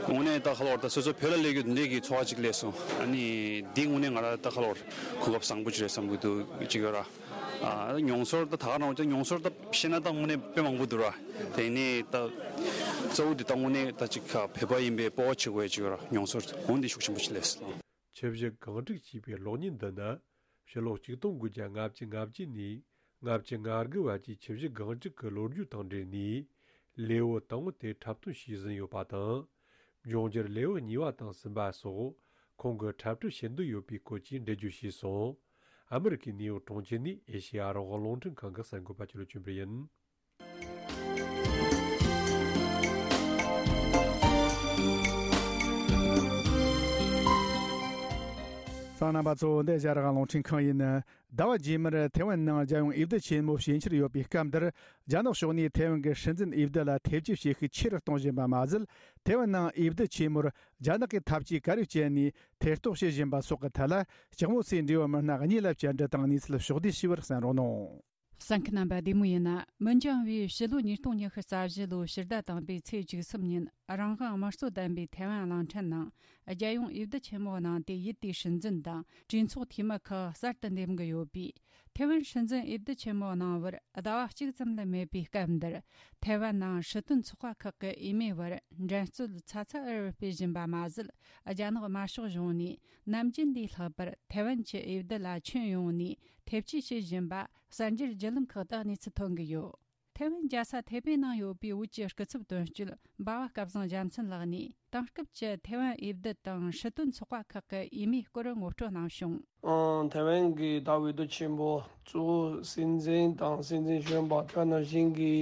དངོས་གནས་ད་ཁ་ལོར་ད་སོ་སོ་བོད་ལ་སླེབས་རྒྱུ་འདི་འདྲའི་གི་ཚོར་བ་ཅིག་སླེབས་སོང་། ཨ་ནི་འདི་དངོས་གནས་ང་ར་ད་ཁ་ལོར་གོ་སྐབས་བཟང་པོ་ཅིག་རེད་བསམ་གི་འདུག་ཅིག་ཡོད་ར། ཨ། མྱོང་ཚོར་ད་ད་ག་རང་ཅིག་མྱོང་ཚོར་ད་བཤད་ན་ད་དངོས་གནས་དཔེ་མང་པོ་འདུག་ར། དེ་ནས་ད་གཙོ་བོ་འདི་ད་དངོས་གནས་ད་ཅིག་བོད་པ་ཡིན་པའི་སྤོབས་པ་བྱེད་དགོས་ཅིག་ཡོད་ར། མྱོང་ཚོར་འོ་འདི་ཤུགས་ཆེན་པོ་ཅིག་སླེབས་སོང་། ཆུ་བཞི་སྒང་དྲུག་ཅེས་པའི་གློག་བརྙན་འདི་ནི་ཕྱི་ལོ་ཆིག་སྟོང་དགུ་བརྒྱ་ལྔ་བཅུ་ང་བརྒྱད་ནས་ལྔ་བཅུ་ང་དགུ་བར་གྱི་ཆུ་བཞི་སྒང་དྲུག་གི་ལོ་རྒྱུས་དང་འབྲེལ་ནས་ལེའུ་དང་པོ་དེ་འཁྲབ་སྟོན་བྱས་ཟིན་ཡོད་པ་དང་། འབྱུང་འགྱུར་ལེའུ་གཉིས་པ་དང་གསུམ་པ་སོགས་ཁོང་གིས་འཁྲབ་ཁྲིད་བྱེད་འདོད་ཡོད་པའི་སྐོར་གྱི་འགྲེལ་བརྗོད་བྱས་སོང་། ཨ་མི་རི་ཀའི་ནིའུ་ཡོག་གྲོང་ཁྱེར་ནས་ཨེ་ཤེ་ཡ་རང་དབང་རླུང་འཕྲིན་ཁང་གི་གསར་འགོད་པ་ཆོས་ལོ་ཆོས་འཕེལ་ཡིན། གསན་མཁན་རྣམ་པ་ཚོ། འདི་ཨེ་ཤེ་ཡ་རང་དབང་རླུང་འཕྲིན་ཁང་ཡིན། ཟླ་བ་རྗེས་མར་ཐེ་ཝན་ནང་རྒྱལ་ཡོངས་འོས་བསྡུ་ཆེན་མོ་ཕྱིན་འཆར་ཡོད་པའི་སྐབས་འདིར། རྒྱ་ནག་ཕྱོགས་ནས་ཐེ་ཝན་གྱི་སྲིད་འཛིན་འོས་བསྡུ་ལ་ཐེ་བྱུས་བྱེད་ཤུགས་ཆེ་རུ་གཏོང་བཞིན་པ་མ་ཟད། ཐེ་ཝན་ནང་འོས་བསྡུ་ཆེན་མོར་རྒྱ་ནག་གིས་ཐབས་ཇུས་ག་རེ་སྤྱད་ནས་ཐེ་གཏོགས་བྱེད་བཞིན་པ་སོགས་ཀྱི་ཐད་ལ། ལྕགས་མོ་སའི་འབྲེལ་ཡོད་མི་སྣ་གཉིས་ལ་བཅར་འདྲི་དང་གནས་ཚུལ་ཕྱོགས་བསྡུས་ཞུས་པར་གསན་རོགས་གནང་། གསན་མཁན་རྣམ་པ་བདེ་མོ་ཡིན་ན། མི་འགྱངས་པའི་ཕྱི་ལོ་ཉིས་སྟོང་ཉི་ཤུ་རྩ་བཞི་ལོའི་ཕྱི་ཟླ་དང་པོའི་ཚེས་བཅུ་གསུམ་ཉིན། རང་དབང་དམངས་གཙོ་ལྡན་པའི་ཐེ་ཝན་གླིང་ཕྲན་ནང་རྒྱལ་ཡོངས་འོས་བསྡུ་ཆེན་མོ་གནང་སྟེ། ཡུལ་དེའི་སྲིད་འཛིན་དང་གྲོས་ཚོགས་འཐུས་མི་ཁག་གསར་དུ་འདེམས་ཀྱི་ཡོད་པས། ཐེ་ཝན་སྲིད་འཛིན་འོས་བསྡུ་ཆེན་མོ་གནང་བར་ཟླ་བ་གཅིག་ཙམ་ལས་མེད་པའི་སྐབས་འདིར། ཐེ་ཝན་ནང་སྲིད་དོན་ཚོགས་པ་ཁག་གི་འོས་མིའི་བར་འགྲན་རྩོད་ཚ་ཚ་འུར་འུར་སྤེལ་བཞིན་པ་མ་ཟད། རྒྱ་ནག་དམར་ཤོག་གཞུང་ནས་ནམ་རྒྱུན་ལས་ལྷག་པར་ཐེ་ཝན་གྱི་འོས་བསྡུ་ལ་ཁྱོན་ཡོངས་ནས་ཐེ་བྱུས་བྱེད་བཞིན་པ་གསར་འགྱུར་བརྒྱུད་ལམ་ཁག་ཏུ་གནས་ཚུལ་ཐོན་གྱི་ཡོད། ཐེ་ཝན་རྒྱལ་ས་ཐེ་པེ་ནང་ཡོད་པའི་བོད་ཀྱི་སྐུ་ཚབ་དོན་གཅོད་འབའ་བ་སྐལ་བཟང་རྒྱལ་མཚན་ལགས་ནས། དེང་སྐབས་ཀྱི་ཐེ་ཝན་འོས་བསྡུ་དང་སྲིད་དོན་ཚོགས་པ་ཁག་གི་འོས་མིའི་སྐོར་ངོ་སྤྲོད་གནང་བྱུང་། ཨང་། ཐེ་ཝན་གྱི་ད་འོས་བསྡུ་ཆེན་པོ་གཙོ་བོ་སྲིད་འཛིན་དང་སྲིད་འཛིན་གཞོན་པ། དེ་ནང་བཞིན་གྱི་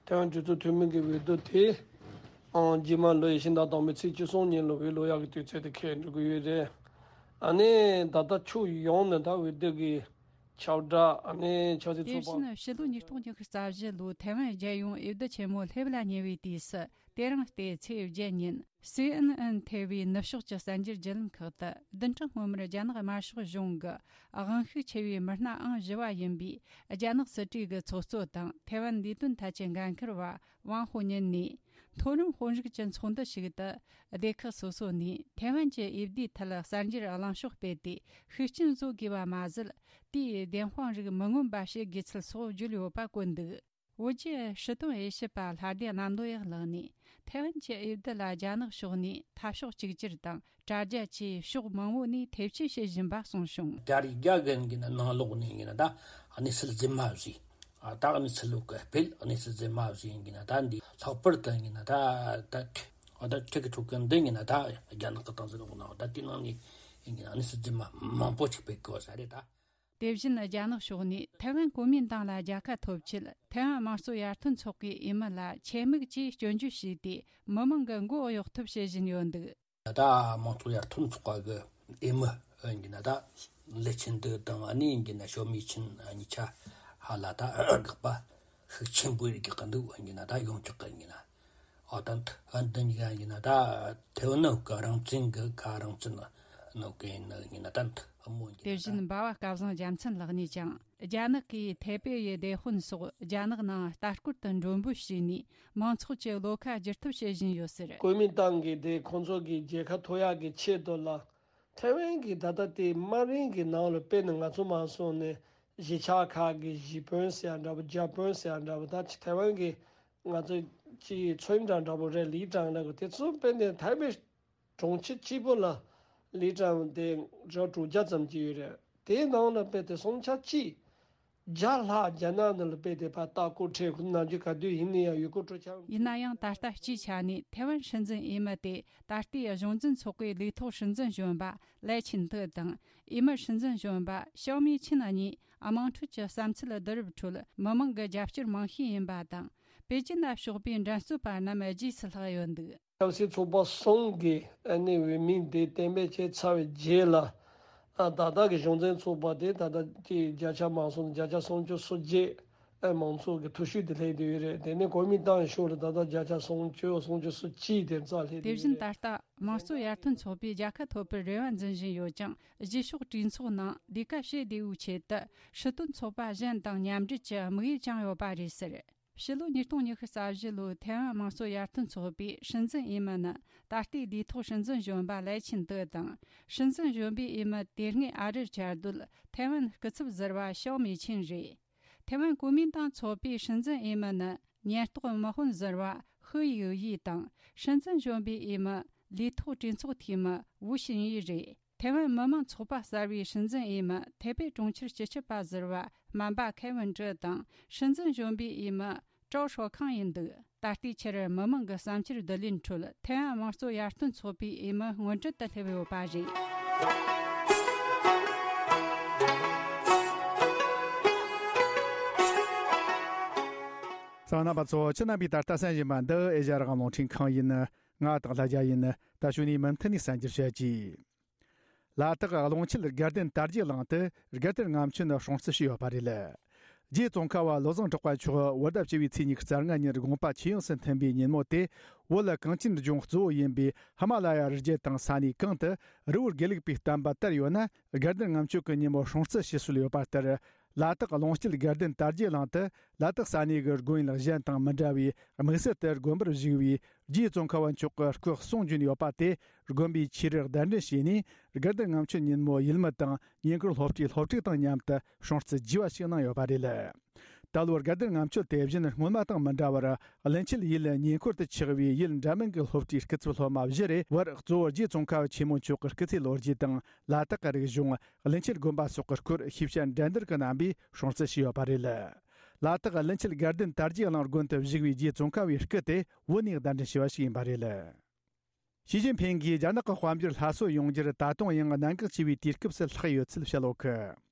ཐེ་ཝན་གྲོས་ཚོགས་འཐུས་མི་གི་འོས་བསྡུ་དེ། ཨང་། རྗེས་མ་ལོ་ཡི་ཕྱི་ཟླ་དང་པོའི་ཚེས་བཅུ་གསུམ་ཉིན་ལ་འོས་བླུག་ཡག་གི་དུས་ཚོད་དེ་འཁེལ་འགྲོ་གི་ཡོད་རེད། ཨ་ནི་ད་ལྟ་ཕྱོགས་ཡོངས་ནས་ད་འོས་བསྡུ་གི་ཁྱབ་བསྒྲགས་ཨ་ནི་ཆབ་སྲིད། དེ་ཚོགས་པ། བཞིན་ཕྱི་ལོ་ཉིས་སྟོང་ཉི་ཤུ་རྩ་བཞི་ལོའི་ཐའེ་ཝན་རྒྱལ་ཡོངས་འོས་བསྡུ་ཆེན་མོ་སླེབས་ལ་ཉེ་བའི་དུས་སུ། དེ་རིང་སྟེ་ཚེས་བརྒྱད་ཉིན་སི་ཨེན་ཨེན་ཐེ་བའི་ནུབ་ཕྱོགས་ཀྱི་གསར་འགྱུར་བརྒྱུད་ལམ་ཁག་ཏུ། བདུན་ཕྲག་སྔོན་མར་རྒྱ་ནག་དམར་ཤོག་གཞུང་གི་དབང་ཤུགས་ཆེ་བའི་མི་སྣ་ཨང་བཞི་བ་ཡིན་པའི་རྒྱ་ནག་སྲིད་གྲོས་ཀྱི་ཚོགས་གཙོ་དང་ཐའེ་ཝན་ལས་དོན་ཐད་ཀྱི་འགན་འཁུར་བ་ཝང་ཧོ་ཉིན་ནས། མཐོ་རིམ་དཔོན་རིགས་ཀྱི་ཚོགས་འདུ་ཞིག་ཏུ། སྡེ་ཁག་སོ་སོ་ནས་ཐའེ་ཝན་གྱི་འོས་བསྡུའི་ཐད་གསར་འགྱུར་གླེང་ཕྱོགས་སྤེལ་ཏེ་ཤུགས་རྐྱེན་བཟོ་དགོས་པ་མ་ཟད། དེའི་བདེན་དཔང་རིགས་མི་མངོན་པ་བྱེད་དགོས་ཚུལ་སོགས་བརྗོད་ཡོད་པ་བཀོད་འདུག། བོད་ཀྱི་སྲིད་དོན་དབྱེ་ཞིབ་པ་ལྷ་སྡེ་གནམ་ལོ་ཡག་ལགས་ནས། ཐའེ་ཝན་གྱི་འོས་བསྡུ་ལ་རྒྱ་ནག་ཕྱོགས་ནས་འཐབ་ཕྱོགས་གཅིག་གྱུར་དང་དྲ་རྒྱ་བཅས་ཕྱོགས་མང་བོ་ནས་ཐེ་བྱུས་བྱེད་བཞིན་པ་གསུངས་བྱུང་། རྒྱ་རིགས་རྒྱ་རྒན་གྱི་ནང་ལོགས་ནས་ཡིན་ན་ད་གནས་ཚུལ་རྫུན་མ་བཟོས། ཨ་ད་གནས་ཚུལ་ལོག་གི་སྤེལ། གནས་ཚུལ་རྫུན་མ་བཟོས་ཡིན་ན་ད་འདི་ལྷག་པར་དུ་ཡིན་ན་ད་ད་ད་ཁྲི་གི་ཕྲུ་གུ་འདི་ཡིན་ན་ད་རྒྱ་ནག་གི་སྟངས་འཛིན་འོག་ན་ད་དེ་ནང་ནས་ཡིན་ན་གནས་ཚུལ་རྫུན་མ་མང་པོ་ཅིག་སྤེལ་དགོས་ས་རེད་ད། དེ་བཞིན་རྒྱ་ནག་ཕྱོགས་ནས་ཐའེ་ཝན་གོ་མིན་ཏང་ལ་རྒྱལ་ཁ་ཐོབ་ཆེད་ཐའེ་ཝན་དམངས་གཙོ་ཡར་ཐོན་ཚོགས་པའི་འོས་མི་ལ་ཆེད་དམིགས་ཀྱིས་སྐྱོན་བརྗོད་བྱས་ཏེ་མི་མང་གི་མགོ་གཡོག་ཐབས་བྱེད་བཞིན་ཡོད་འདུག། ད་དམངས་གཙོ་ཡར་ཐོན་ཚོགས་པ་གི་འོས་མི་ཡིན་གྱི་ན་ད་ལི་ཆིན་ཏེ་དང་ཨ་ནི་ཡིན་གྱི་ན་ཞའོ་མི་ཆིན་གཉིས་ཆ་ཧ་ལ་ད་དགག་པ་ཤུགས་ཆེན་པོ་རིགས་ཀྱི་འདུག་ཡིན་གྱི་ན་ད་ཡོང་ཆོག་གི་ཡིན་གྱི་ན། ཨོ་ད་འདི་ཡིན་གྱི་ན་ད་ཐེ་ཝན་ནི་ག་རང་བཙན་གི་ག་རང་བཙན་ནོ་གི་ཡིན་གྱི་ན་ད་འདི་མོ་ཡིན་གྱི་ན་ད། དེ་བཞིན་འབའ་བ་སྐལ་བཟང་རྒྱལ་མཚན་ལགས་ནས་ཀྱང་། རྒྱ་ནག་གིས་ཐའེ་པེ་ཡི་སྡེ་དཔོན་སོགས་རྒྱ་ནག་ནང་ལྟ་སྐོར་དུ་མགྲོན་འབོད་བྱས་ནས་མང་ཚོགས་ཀྱི་བློ་ཁ་བསྒྱུར་ཐབས་བྱེད་བཞིན་ཡོད་ཟེར། གོ་མིན་ཏང་གི་དེ་ཁོང་ཚོ་གི་རྒྱལ་ཁ་ཐོབ་ཡག་གི་ཆེད་དུ་ལ། ཐའེ་ཝན་གི་ད་ལྟ་དེ་དམའ་རིམ་གི་ནང་ལ་དཔེར་ན་ང་ཚོ་མ་སོང་ནས་གཞིས་ཆགས་ཁག་གི་གཞིས་དཔོན་ཟེར་ཡ་འདྲ་པོ་རྒྱ་དཔོན་ཟེར་ཡ་འདྲ་པོ་ད་ཐའེ་ཝན་གི་ང་ཚོ་ཅི་ཚོད་འདྲ་འདྲ་པོ་རེད་ལི་ཀྲང་འདྲ་པོ་དེ་ཚོ་དཔེར་ན་ཐའེ་པེ། གྲོང་ཁྱེར་གཅིག་པོ་ལ་ལི་ཀྲང་དེ་རེ་དྲུག་བརྒྱ་ཙམ་ཅིག་ཡོད་རེད། དེའི་ནང་ལ་དཔེ་དེ་སུམ་ཆ་གཅིག་བརྒྱ་ལྷག་རྒྱ་ནག་ནང་ལ་དཔེ་དེ་ཕར་ལྟ་སྐོར་འཁྲིད་ཁོ་ནམ་རྒྱུན་ག་དུས་ཡིན་ན་ཡང་ཡུལ་སྐོར་སྤྲོ་འཆམ། ཡིན་ན་ཡང་ད་ལྟ་སྤྱིའི་ཆ་ནས་ཐའེ་ཝན་སྲིད་འཛིན་འོས་མི་དེ་ད་ལྟའི་གཞུང་འཛིན་ཚོགས་པའི་ལས་ཐོག་སྲིད་འཛིན་གཞོན་པ་ལའེ་ཆིན་ཏེ་དང་འོས་མི་སྲིད་འཛིན་གཞོན་པ་ཞའོ་མི་ཆིན་གཉིས་དམངས་ཁྲོད་ཀྱི་བསམ་ཚུལ་བསྡུ་རུབ་ཁྲོད་མི་མང་གི་རྒྱབ་སྐྱོར་མང་ཤོས་ཡིན་པ་དང་པེ་ཅིན་ལ་ཕྱོགས་པའི་འགྲན་རྩོད་པ་རྣམས་རྗེས་སུ་ལྷག་ཡོད་འདུག། ཆབ་སྲིད་ཚོགས་པ་གསུམ་གྱི་ཨ་ནི་འོས་མི་དེ་གཏན་འབེབས་བྱས་ཚར་བའི་རྗེས་ལ། ཨ་ད་ལྟ་གི་གཞུང་འཛིན་ཚོགས་པ་དེ་ད་ལྟ་དེ་བརྒྱ་ཆ་མང་སོང་བརྒྱ་ཆ་སུམ་ཅུ་སོ་བརྒྱད་ཨ་མང་ཚོགས་ཀྱི་ཐུགས་ཤུགས་དེ་སླེབས་བསྡད་ཡོད་རེད། དེ་ནས་གོ་མིན་ཏང་ཤོག་ལ་ད་ལྟ་བརྒྱ་ཆ་སུམ་ཅུ་སུམ་ཅུ་སོ་གཅིག་དེ་རྩ་སླེབས་དེ་བསྡད་བཞིན་ཡོད་ད་རེད། ལྟ་དམངས་གཙོ་ཡར་ཐོན་ཚོགས་པས་རྒྱལ་ཁ་ཐོབ་པར་རེ་བ་འཛིན་བཞིན་ཡོད་ཀྱང་རྗེས་ཕྱོགས་གྲོས་ཚོགས་ནང་ལས་ཀ་བྱེད་བདེ་བོའི་ཆེད་དུ་སྲིད་དོན་ཚོགས་པ་གཞན་དང་མཉམ་འབྲེལ་གྱི་དམིགས་ཡུལ་བཅངས་ཡོད་པ་རེད་ཟེར། ཕྱི་ལོ་ཉིས་སྟོང་ཉི་ཤུ་རྩ་བཞི་ལོའི་ཐའེ་ཝན་དམངས་གཙོ་ཡར་ཐོན་ཚོགས་པའི་སྲིད་འཛིན་འོས་མི་ནི་ད་ལྟའི་ལས་ཐོག་སྲིད་འཛིན་གཞོན་པ་ལའེ་ཆིན་ཏེ་དང་། སྲིད་འཛིན་གཞོན་པའི་འོས་མི་དེ་སྔའི་ཨ་རིར་བཅའ་སྡོད་ཐའེ་ཝན་སྐུ་ཚབ་ཟུར་པ་ཞའོ་མེ་ཆིན་རེད། ཐའེ་ཝན་གོ་མིན་ཏང་ཚོགས་པའི་སྲིད་འཛིན་འོས་མི་ནི་ཉེན་རྟོག་དམག་དཔོན་ཟུར་པ་ཧུའུ་ཡིའུ་ཡི་དང་། སྲིད་འཛིན་གཞོན་པའི་འོས་མི་ལས་ཐོག་གྲོས་ཚོགས་འཐུས་མི་ཝུ་ཞིན་ཡི་རེད། ཐའེ་ཝན་མི་དམངས་ཚོགས་པ་གསར་བའི་སྲིད་འཛིན་འོས་མི་ཐའེ་པེ་གྲོང་ཁྱེར་སྤྱི་ཁྱབ་པ་ཟུར་པ་སྨན་པ་ཁེ་ཝིན་ཀྲི་དང་སྲིད་འཛིན་གཞོན་པའི་འོས་མི་ཀྲའོ་ཧྲོ་ཁང་ཡིན་འདུག། ད་ལྟའི་ཆར་མི་མང་གི་བསམ་འཆར་བསྡུ་ལེན་ཁྲོད་ཐའེ་ཝན་དམངས་གཙོ་ཡར་ཐོན་ཚོགས་པའི་འོས་མི་སྔོན་གྲལ་དུ་སླེབས་ཡོད་པ་རེད། གསན་མཁན་རྣམ་པ་ཚོ་ཁྱེད་རྣམ་པས་ད་ལྟ་གསན་བཞིན་པ་འདི་ཨེ་ཤ་ཡ་རང་དབང་རླུང་འཕྲིན་ཁང་ཡིན། ང་དང་ལྷ་རྒྱལ་ཡིན། ད་གཞུག་ནས་མུ་མཐུད་ནས་གསན་རྒྱུར་བྱེད་ཀྱིས། ལ་དྭགས་ཀློང་ཆེན་དགའ་ལྡན་དར་རྒྱས་གླིང་དུ་དགའ་ལྡན་ལྔ་མཆོད་ནི་སྲུང་བརྩི་ཞུས་ཡོད་པ་རེད། རྗེ་ཙོང་ཁ་པ་བློ་བཟང་གྲགས་པ་མཆོག་བོད་ཟླ་བཅུ་བའི་ཚེས་ཉི་ཤུ་རྩ་ལྔ་ཉིན་དགོངས་པ་ཇེ་ཡངས་སུ་ཐོན་པའི་ཉིན་མོ་དེ། བོད་གངས་ཅན་ལྗོངས་གཙོ་བོ་ཡིན་པའི་ཧི་མ་ལ་ཡ་རི་རྒྱུད་དང་ས་གནས་གང་དུ་རི་བོ་དགེ་ལུགས་པའི་བསྟན་པ་དར་ཡོད་ན། དགའ་ལྡན་ལྔ་མཆོད་ཀྱི་ཉིན་མོ་སྲུང་བརྩི་ཞུ་སྲོལ་ཡོད་པ་ལྟར། ལ་དྭགས་ཀློང་སྐྱིད་དགའ་ལྡན་དར་རྒྱས་གླིང་དུ་ལ་དྭགས་ས་གནས་ཀྱི་དགོན་ཡུལ་གཞན་དང་མི་འདྲ་བའི་དམིགས་བསལ་དུ་དགོན་པར་བཞུགས་པའི་རྗེ་ཙོང་ཁ་པ་མཆོག་གི་སྐུ་གསུང་བྱོན་ཡོད་པ་དེ། དགོན་པའི་ཆོས་རིག་གདན་འདྲེན་བྱས་ནས་དགའ་ལྡན་ལྔ་མཆོད་ཉིན་མོ་ཡུལ་མི་དང་ཉེ་འཁོར་སློབ་གྲྭའི་སློབ་ཕྲུག་དང་མཉམ་དུ་སྲུང་བརྩི་རྒྱས་པ་ཞིག་གནང་ཡོད་པ་རེད། ད་ལོར་དགའ་ལྡན་ལྔ་མཆོད་དེ་བཞིན་སྔོན་མ་དང་མི་འདྲ་བར་བློན་ཆེན་ཡུལ་ཉེ་འཁོར་དུ་ཆགས་པའི་ཡུལ་འདྲ་མིན་གྱི་སློབ་གྲྭའི་སྐུ་ཚབ་སློབ་མ་བཞི་རེ་བར་གཙོ་བོ་རྗེ་ཙོང་ཁ་པ་ཆེན་མོ་མཆོག་གི་སྐུ་ཚེ་ལོ་རྒྱུས་དང་ལ་དྭགས་ཀྱི་རིག་གཞུང་། བློན་ཆེན་དགོན་པ་སོགས་ཀྱི་སྐོར་ཤེས་བྱ་འགྲན་བསྡུར་གྱི་རྣམ་པས་སྲུང་བརྩི་བྱས་ཡོད་པ་རེད། ལ་དྭགས་བློན་ཆེན་དགའ་ལྡན་དར་རྒྱས་གླིང་དགོན་དུ་བཞུགས་པའི་རྗེ་ཙོང་ཁ་པའི་སྐུ་དེ་བོད་ནས་གདན་འདྲེན་བྱས་པ་ཞིག་ཡིན་པ་རེད། ཞི་ཅིན་ཕིང་གིས་རྒྱ་ནག་གི་དཔལ་འབྱོར་སླར་གསོ་ཡོང་རྒྱུར་ད་དུང་ཡང་གནད་འགག་ཆེ་བའི་དུས་སྐབས་སུ་ལྷག་ཡོད་ཚུལ་བཤད་ཡོད་གི།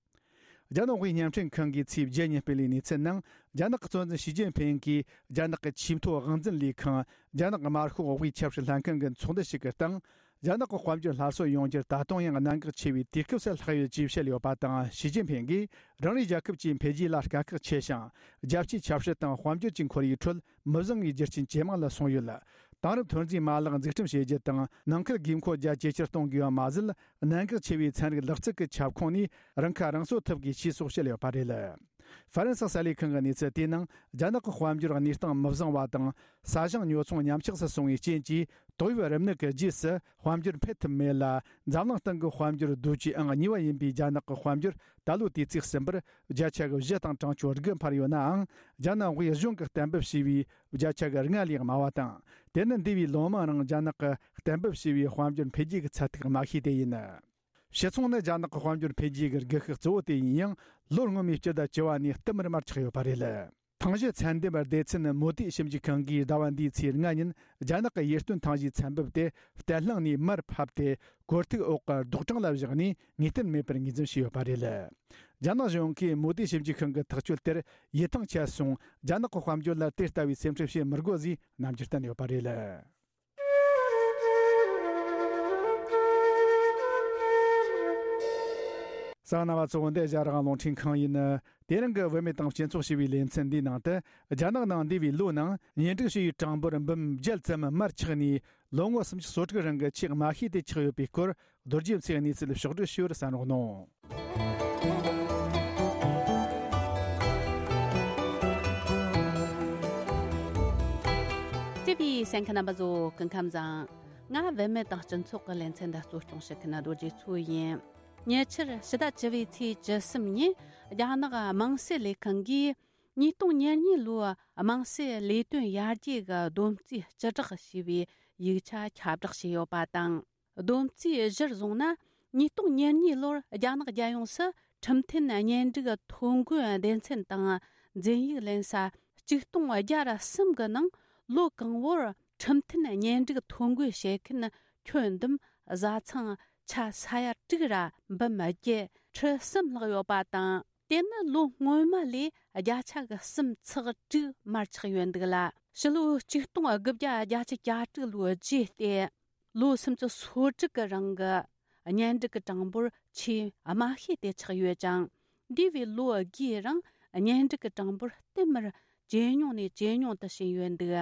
རྒྱ་ནག་དབུས་བརྙན་འཕྲིན་ཁང་གིས་ཚེས་བརྒྱད་ཉིན་སྤེལ་བའི་གནས་ཚུལ་ནང་། རྒྱ་ནག་གི་གཙོ་འཛིན་ཞི་ཅིན་ཕིང་གིས་རྒྱ་ནག་གི་ཆེས་མཐོའི་དབང་འཛིན་ལས་ཁང་རྒྱ་ནག་དམར་ཤོག་དབུས་ཆབ་སྲིད་ལྷན་ཁང་གི་ཚོགས་འདུ་ཞིག་གི་སྟེང་། རྒྱ་ནག་གི་དཔལ་འབྱོར་སླར་གསོ་ཡོང་རྒྱུར་ད་དུང་ཡང་གནད་འགག་ཆེ་བའི་དུས་སྐབས་སུ་ལྷག་ཡོད་ཅེས་བཤད་ཡོད་པ་དང་། ཞི་ཅིན་ཕིང་གིས་རང་རེའི་རྒྱལ་ཁབ་ཀྱི་འཕེལ་རྒྱས་ལ་དཀའ་ཁག་ཆེ་ཞིང་། རྒྱལ་སྤྱིའི་ཆབ་སྲིད་དང་དཔལ་འབྱོར་གྱི་ཁོར་ཡུག་ཁྲོད་མི་བཟང་བའི་རྒྱུ་རྐྱེན་ཇེ་མང་ལ་སོང་ཡོད། དེང་རབས་ཐོན་རྫས་མ་ལག་འཛུགས་སྐྲུན་བྱེད་རྒྱུ་དང་། ནང་ཁུལ་དགོས་མཁོ་རྒྱ་ཇེ་ཆེར་གཏོང་དགོས་པ་མ་ཟད། གནད་འགག་ཆེ་བའི་ཚན་རིག་ལག་རྩལ་གྱི་ཁྱབ་ཁོངས་ནས་རང་ཁ་རང་གསོ་ཐུབ་དགོས་ཞེས་སོགས་བཤད་ཡོད་པ་རེད། ཧྥ་རན་སི་གསར་ལས་ཁང་གི་གནས་ཚུལ་དེའི་ནང་། རྒྱ་ནག་གི་དཔལ་འབྱོར་གནས་སྟངས་མི་བཟང་བ་དང་། ས་ཞིང་ཉོ་ཚོང་ཉམས་ཆག་སུ་སོང་བའི་རྐྱེན་གྱིས། ཏོག་དབྱིབས་རིམས་ནད་ཀྱི་རྗེས་སུ་དཔལ་འབྱོར་འཕེལ་ཐུབ་མེད་ལ། འཛམ་གླིང་སྟེང་གི་དཔལ་འབྱོར་རྡོ་རྗེ་ཨང་གཉིས་པ་ཡིན་པའི་རྒྱ་ནག་གི་དཔལ་འབྱོར་ད་ལོའི་དུས་ཚིགས་གསུམ་པར་བརྒྱ་ཆ་གི་བཞི་དང་གྲངས་ཆུང་དགུ་འཕར་ཡོད་ནའང་། རྒྱ་ནག་དབུས་གཞུང་གིས་གཏན་འབེབས་བྱས་པའི་བརྒྱ་ཆ་གི་ལྔ་ལས་དམའ་བ་དང་། དེ་ནི་འདས་པའི་ལོ་མང་རིང་རྒྱ་ནག་གིས་གཏན་འབེབས་བྱས་པའི་དཔལ་འབྱོར་འཕེལ་རྒྱས་ཀྱི་ཚད་ཐིག་དམའ་ཤོས་དེ་ཡིན། ཕྱི་ཚོང་ནི་རྒྱ་ནག་གི་དཔལ་འབྱོར་འཕེལ་རྒྱས་ཀྱི་སྒུལ་ཤུགས་གཙོ་བོ་དེ་ཡིན་ཡང་། ལོ་སྔོན་མའི་སྤྱི་ཟླ་བཅུ་བ་ནས་བསྟུད་མར་མར་ཆག་ཡོད་པ་རེད། ཐང་གཞི་ཚན་འདེམས་སྡེ་ཚན་མོ་དི་ཞིབ་འཇུག་ཁང་གིས་ཟླ་བ་འདིའི་ཚེས་ལྔ་ཉིན་རྒྱ་ནག་གི་ཡིད་རྟོན་ཐང་གཞིའི་ཚན་འབེབས་དེ་བརྟན་ལྷིང་ནས་མར་ཕབ་སྟེ། གོར་ཐིག་འོག་གི་རྡོག་གྲངས་ལ་བཞག་ནས་ངེས་གཏན་མེད་པར་ངོས་འཛིན་བྱས་ཡོད་པ་རེད། རྒྱ་ནག་གཞུང་གིས་མོ་དི་ཞིབ་འཇུག་ཁང་གི་ཐག་གཅོད་དེར་ཡིད་ཐང་ཆད་སོང་། རྒྱ་ནག་གི་དཔལ་འབྱོར་ལ་དེ་ལྟ་བུའི་སེམས་ཁྲལ་བྱེད་མི་དགོས་ཞེས་རྣམ་འགྱུར་བསྟན་ཡོད་པ་རེད། གསན་མཁན་རྣམ་པ་ཚོ། འདི་རྒྱ་རང་དབང་རླུང་འཕྲིན་ཁང་ཡིན། དེ་རིང་གི་བུད་མེད་དང་སྤྱི་ཚོགས་ཞེས་པའི་ལེ་ཚན་འདིའི་ནང་དུ། རྒྱ་ནག་ནང་འདས་པའི་ལོའི་ནང་གཉེན་སྒྲིག་བྱས་པའི་གྲངས་འབོར་འབུམ་བརྒྱད་ཙམ་མར་ཆག་ནས། ལོ་ངོ་སུམ་ཅུ་སོ་དྲུག་རིང་གི་ཆེས་དམའ་ཤོས་དེ་ཆགས་ཡོད་པའི་སྐོར། རྡོ་རྗེ་མཚོས་གནས་ཚུལ་ཕྱོགས་བསྒྲིགས་ཞུ་བར་གསན་རོགས་གནང་། བརྩེ་བའི་གསན་མཁན་རྣམ་པ་ཚོ། སྐུ་ཁམས་བཟང་། ང་བུད་མེད་དང་སྤྱི་ཚོགས་ཀྱི་ལེ་ཚན་འདི་གཙོ་སྐྱོང་བྱེད་མཁན་རྡོ་རྗེ་མཚོ་ཡིན། ཉེ་ཆར་ཕྱི་ཟླ་བཅུ་པའི་ཚེས་བཅུ་གསུམ་ཉིན་རྒྱ་ནག་དམངས་སྲིད་ལས་ཁང་གིས་ཉིས་སྟོང་ཉེར་གཉིས་ལོའི་དམངས་སྲིད་ལས་དོན་ཡར་རྒྱས་ཀྱི་བསྡོམས་རྩིས་སྤྱི་བསྒྲགས་ཞེས་པའི་ཡིག་ཆ་ཁྱབ་བསྒྲགས་བྱས་ཡོད་པ་དང་། བསྡོམས་རྩིས་གཞིར་བཟུང་ན། ཉིས་སྟོང་ཉེར་གཉིས་ལོར་རྒྱ་ནག་རྒྱལ་ཡོངས་སུ་ཁྲིམས་མཐུན་གཉེན་སྒྲིག་ཐོ་འགོད་སྡེ་ཚན་དང་འཛིན་ཡིག་ལེན་ས་གཅིག་སྟོང་བརྒྱ་ར་གསུམ་གི་ནང་། ལོ་གང་བོར་ཁྲིམས་མཐུན་གཉེན་སྒྲིག་ཐོ་འགོད་བྱེད་མཁན་ཁྱོན་བསྡོམས་བཟའ་ཚང་ཆ་ས་ཡ་དྲུག་ར་འབུམ་བརྒྱད་ཁྲི་གསུམ་ལྷག་ཡོད་པ་དང་། དེ་ནི་ལོ་སྔོན་མ་ལས་བརྒྱ་ཆ་གི་གསུམ་ཚེག་དྲུག་མར་ཆག་ཡོད་འདུག་ལ། ཕྱི་ལོ་ཆིག་སྟོང་དགུ་བརྒྱ་བརྒྱད་ཅུ་གྱ་དྲུག་ལོའི་རྗེས་ཏེ། ལོ་སུམ་ཅུ་སོ་དྲུག་གི་རིང་གི་གཉེན་སྒྲིག་གི་གྲངས་འབོར་ཆེས་དམའ་ཤོས་དེ་ཆགས་ཡོད་ཅིང་། འདས་པའི་ལོ་དགུའི་རིང་གཉེན་སྒྲིག་གི་གྲངས་འབོར་བསྟུད་མར་ཇེ་ཉུང་ནས་ཇེ་ཉུང་དུ་ཕྱིན་ཡོད་འདུག་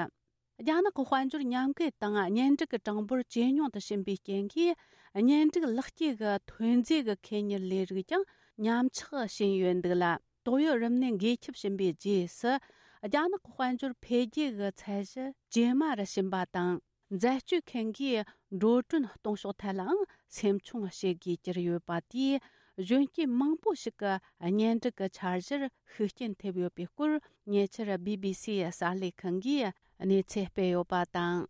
རྒྱ་ནག་གི་དཔལ་འབྱོར་ཉམས་རྒུད་དང་གཉེན་སྒྲིག་གི་གྲངས་འབོར་ཇེ་ཉུང་དུ་ཕྱིན་པའི་རྐྱེན་གྱིས། གཉེན་སྒྲིག་ལག་སྐྱེས་ཀྱི་ཐོན་རྫས་ཀྱི་ཁེ་གཉེར་ལས་རིགས་ཀྱང་ཉམས་ཆག་ཕྱིན་ཡོད་འདུག་ལ། ཏོག་དབྱིབས་རིམས་ནད་འགོས་ཁྱབ་ཕྱིན་པའི་རྗེས་སུ། རྒྱ་ནག་གི་དཔལ་འབྱོར་འཕེལ་རྒྱས་ཀྱི་ཚད་གཞི་ཇེ་དམའ་རུ་ཕྱིན་པ་དང་། འཛད་སྤྱོད་མཁན་གྱིས་འགྲོ་གྲོན་གཏོང་ཕྱོགས་ཐད་ལའང་སེམས་ཆུང་བྱེད་དགོས་གྱུར་ཡོད་པ་དེས། གཞོན་སྐྱེས་མང་པོ་ཞིག་གི་གཉེན་སྒྲིག་གི་འཆར་གཞིར་ཤུགས་རྐྱེན་ཐེབས་ཡོད་པའི་སྐོར། ཉེ་ཆར་བི་བི་སིའི་གསར་ལས་ཁང་གིས་གནས་ཚུལ་སྤེལ་ཡོད་པ་དང་།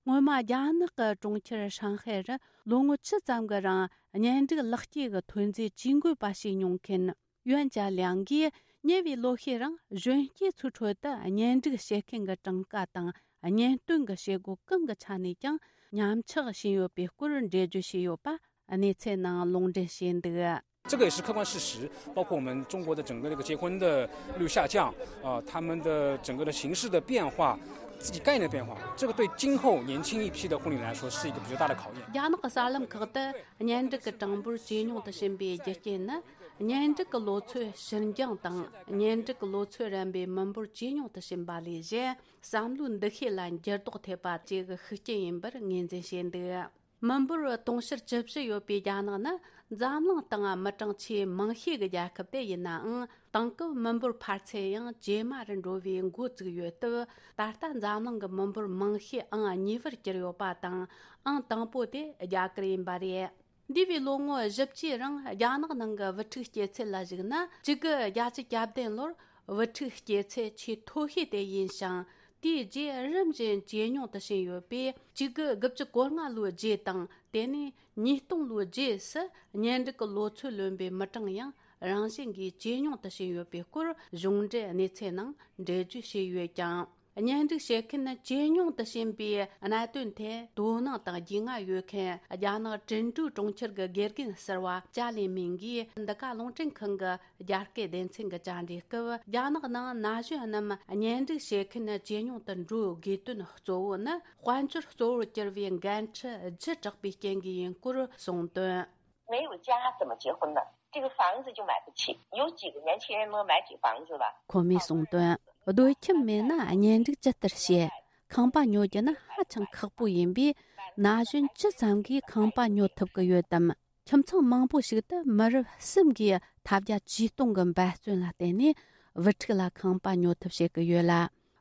སྔོན་མ་རྒྱ་ནག་གི་གྲོང་ཁྱེར་ཧྲང་ཧའེ་རུ་ལོ་ངོ་བཅུ་ཙམ་གྱི་རིང་གཉེན་སྒྲིག་ལག་སྐྱེས་ཀྱི་ཐོན་རྫས་ཇུས་འགོད་པ་བྱས་མྱོང་མཁན་ཡོན་ཅཱ་ལིའང་གིས། ཉེ་བའི་ལོ་ཤས་རིང་གཞོན་སྐྱེས་ཚོའི་ཁྲོད་དུ་གཉེན་སྒྲིག་བྱེད་མཁན་གྱི་གྲངས་ཀ་དང་གཉེན་སྟོན་གྱི་བྱེད་སྒོ་གང་གི་ཆ་ནས་ཀྱང་ཉམས་ཆག་ཕྱིན་ཡོད་པའི་སྐོར་འགྲེལ་བརྗོད་བྱས་ཡོད་པ་གནས་ཚུལ་ནང་ལུང་འདྲེན་བྱས་འདུག། 这个也是客观事实，包括我们中国的整个的一个结婚的率下降，呃，他们的整个的形势的变化，自己概念的变化，这个对今后年轻一批的婚礼来说是一个比较大的考验。རྒྱ་ནག་གི་གསར་ལམ་ཁག་ཏུ་གཉེན་སྒྲིག་གི་གྲངས་འབོར་ཇེ་ཉུང་དུ་ཕྱིན་པའི་རྒྱུ་རྐྱེན་ནི། གཉེན་སྒྲིག་གི་ལོ་ཚོད་ཕྱིར་འགྱངས་དང་། གཉེན་སྒྲིག་གི་ལོ་ཚོད་རན་པའི་མི་འབོར་ཇེ་ཉུང་དུ་ཕྱིན་པ་ལས་གཞན། བསམ་བློའི་འདུ་ཤེས་ལ་འགྱུར་ལྡོག་ཐེབས་པ་བཅས་ཀྱི་ཤུགས་རྐྱེན་ཡིན་པར་ངོས་འཛིན་བྱས་འདུག། མི་འབོར་དུང་ཕྱུར་བཅུ་བཞི་ཡོད་པའི་རྒྱ་ནག་ནི་འཛམ་གླིང་སྟེང་མི་གྲངས་ཆེས་མང་ཤོས་ཀྱི་རྒྱལ་ཁབ་དེ་ཡིན་ནའང་། དེང་སྐབས་མི་འབོར་འཕར་ཚད་ཡང་ཇེ་དམའ་རུ་འགྲོ་བའི་འགོ་བཙུགས་ཡོད་སྟབས། ད་ལྟ་འཛམ་གླིང་གི་མི་འབོར་མང་ཤོས་ཨང་གཉིས་པར་གྱུར་ཡོད་པ་དང་། ཨང་དང་པོ་དེ་རྒྱ་གར་ཡིན་པ་རེད། འདས་པའི་ལོ་ངོ་བཞི་བཅུའི་རིང་རྒྱ་ནག་ནང་གི་བུ་ཕྲུག་སྐྱེ་ཚད་ལ་གཞིགས་ན། གཅིག་དགུ་བརྒྱད་ཅུ་གྱ་བདུན་ལོར་བུ་ཕྲུག་སྐྱེ་ཚད་ཆེས་མཐོ་ཤོས་དེ་ཡིན་ཞིང་། དེའི་རྗེས་རིམ་བཞིན་ཇེ་ཉུང་དུ་ཕྱིན་ཡོད་པས། གཅིག་དགུ་དགུ་བཅུ་གོ་ལྔ་ལོའི་རྗེས་དང་། དེ་ནས་ཉིས་སྟོང་ལོའི་རྗེས་སུ་གཉེན་སྒྲིག་གི་ལོ་ཚོད་ལོན་པའི་མི་གྲངས་ཡང་རང་བཞིན་གྱིས་ཇེ་ཉུང་དུ་ཕྱིན་ཡོད་པའི་སྐོར་གཞུང་འབྲེལ་གནས་ཚུལ་ནང་འགྲེལ་བརྗོད་བྱས་ཡོད་ཀྱང་། གཉེན་སྒྲིག་བྱེད་མཁན་ཇེ་ཉུང་དུ་ཕྱིན་པའི་གནད་དོན་ཐད་དོ་སྣང་དང་རྒྱུས་མངའ་ཡོད་མཁན་རྒྱ་ནག་ཀྲུང་ཀྲོའུ་གྲོང་ཁྱེར་གྱི་དགེ་རྒན་ཟུར་པ་ཅཱ་ལི་མིང་གིས་འདི་ག་རླུང་འཕྲིན་ཁང་གི་རྒྱ་སྐད་སྡེ་ཚན་གྱི་བཅར་འདྲིའི་སྐབས། རྒྱ་ནག་ནང་ན་གཞོན་རྣམས་གཉེན་སྒྲིག་བྱེད་མཁན་ཇེ་ཉུང་དུ་འགྲོ་དགོས་དོན་གཙོ་བོ་ནི། དཔལ་འབྱོར་གཙོ་བོར་གྱུར་བའི་འགན་འཁྲི་བརྒྱུད་དྲགས་པའི་རྐྱེན་གྱིས་ཡིན་སྐོར་གསུངས་དོན། 没有家怎么结婚呢？这个房子就买不起，有几个年轻人能买起房子了？ ཁོ་མོས་གསུངས་དོན། སྡོད་ཁྱིམ་མེད་ན་གཉེན་སྒྲིག་ཇི་ལྟར་བྱེད། ཁང་པ་ཉོ་རྒྱུ་ནི་ཧ་ཅང་ཁག་པོ་ཡིན་པས། ན་གཞོན་ཇི་ཙམ་གྱིས་ཁང་པ་ཉོ་ཐུབ་ཀྱི་ཡོད་དམ། ཁྱིམ་ཚང་མང་པོ་ཞིག་ཏུ་མི་རབས་གསུམ་གྱིས་ཐབས་བརྒྱ་ཇུས་སྟོང་གི་འབད་བརྩོན་ལ་བརྟེན་ནས་བུ་ཕྲུག་ལ་ཁང་པ་ཉོ་ཐབས་བྱེད་ཀྱི་ཡོད་ལ།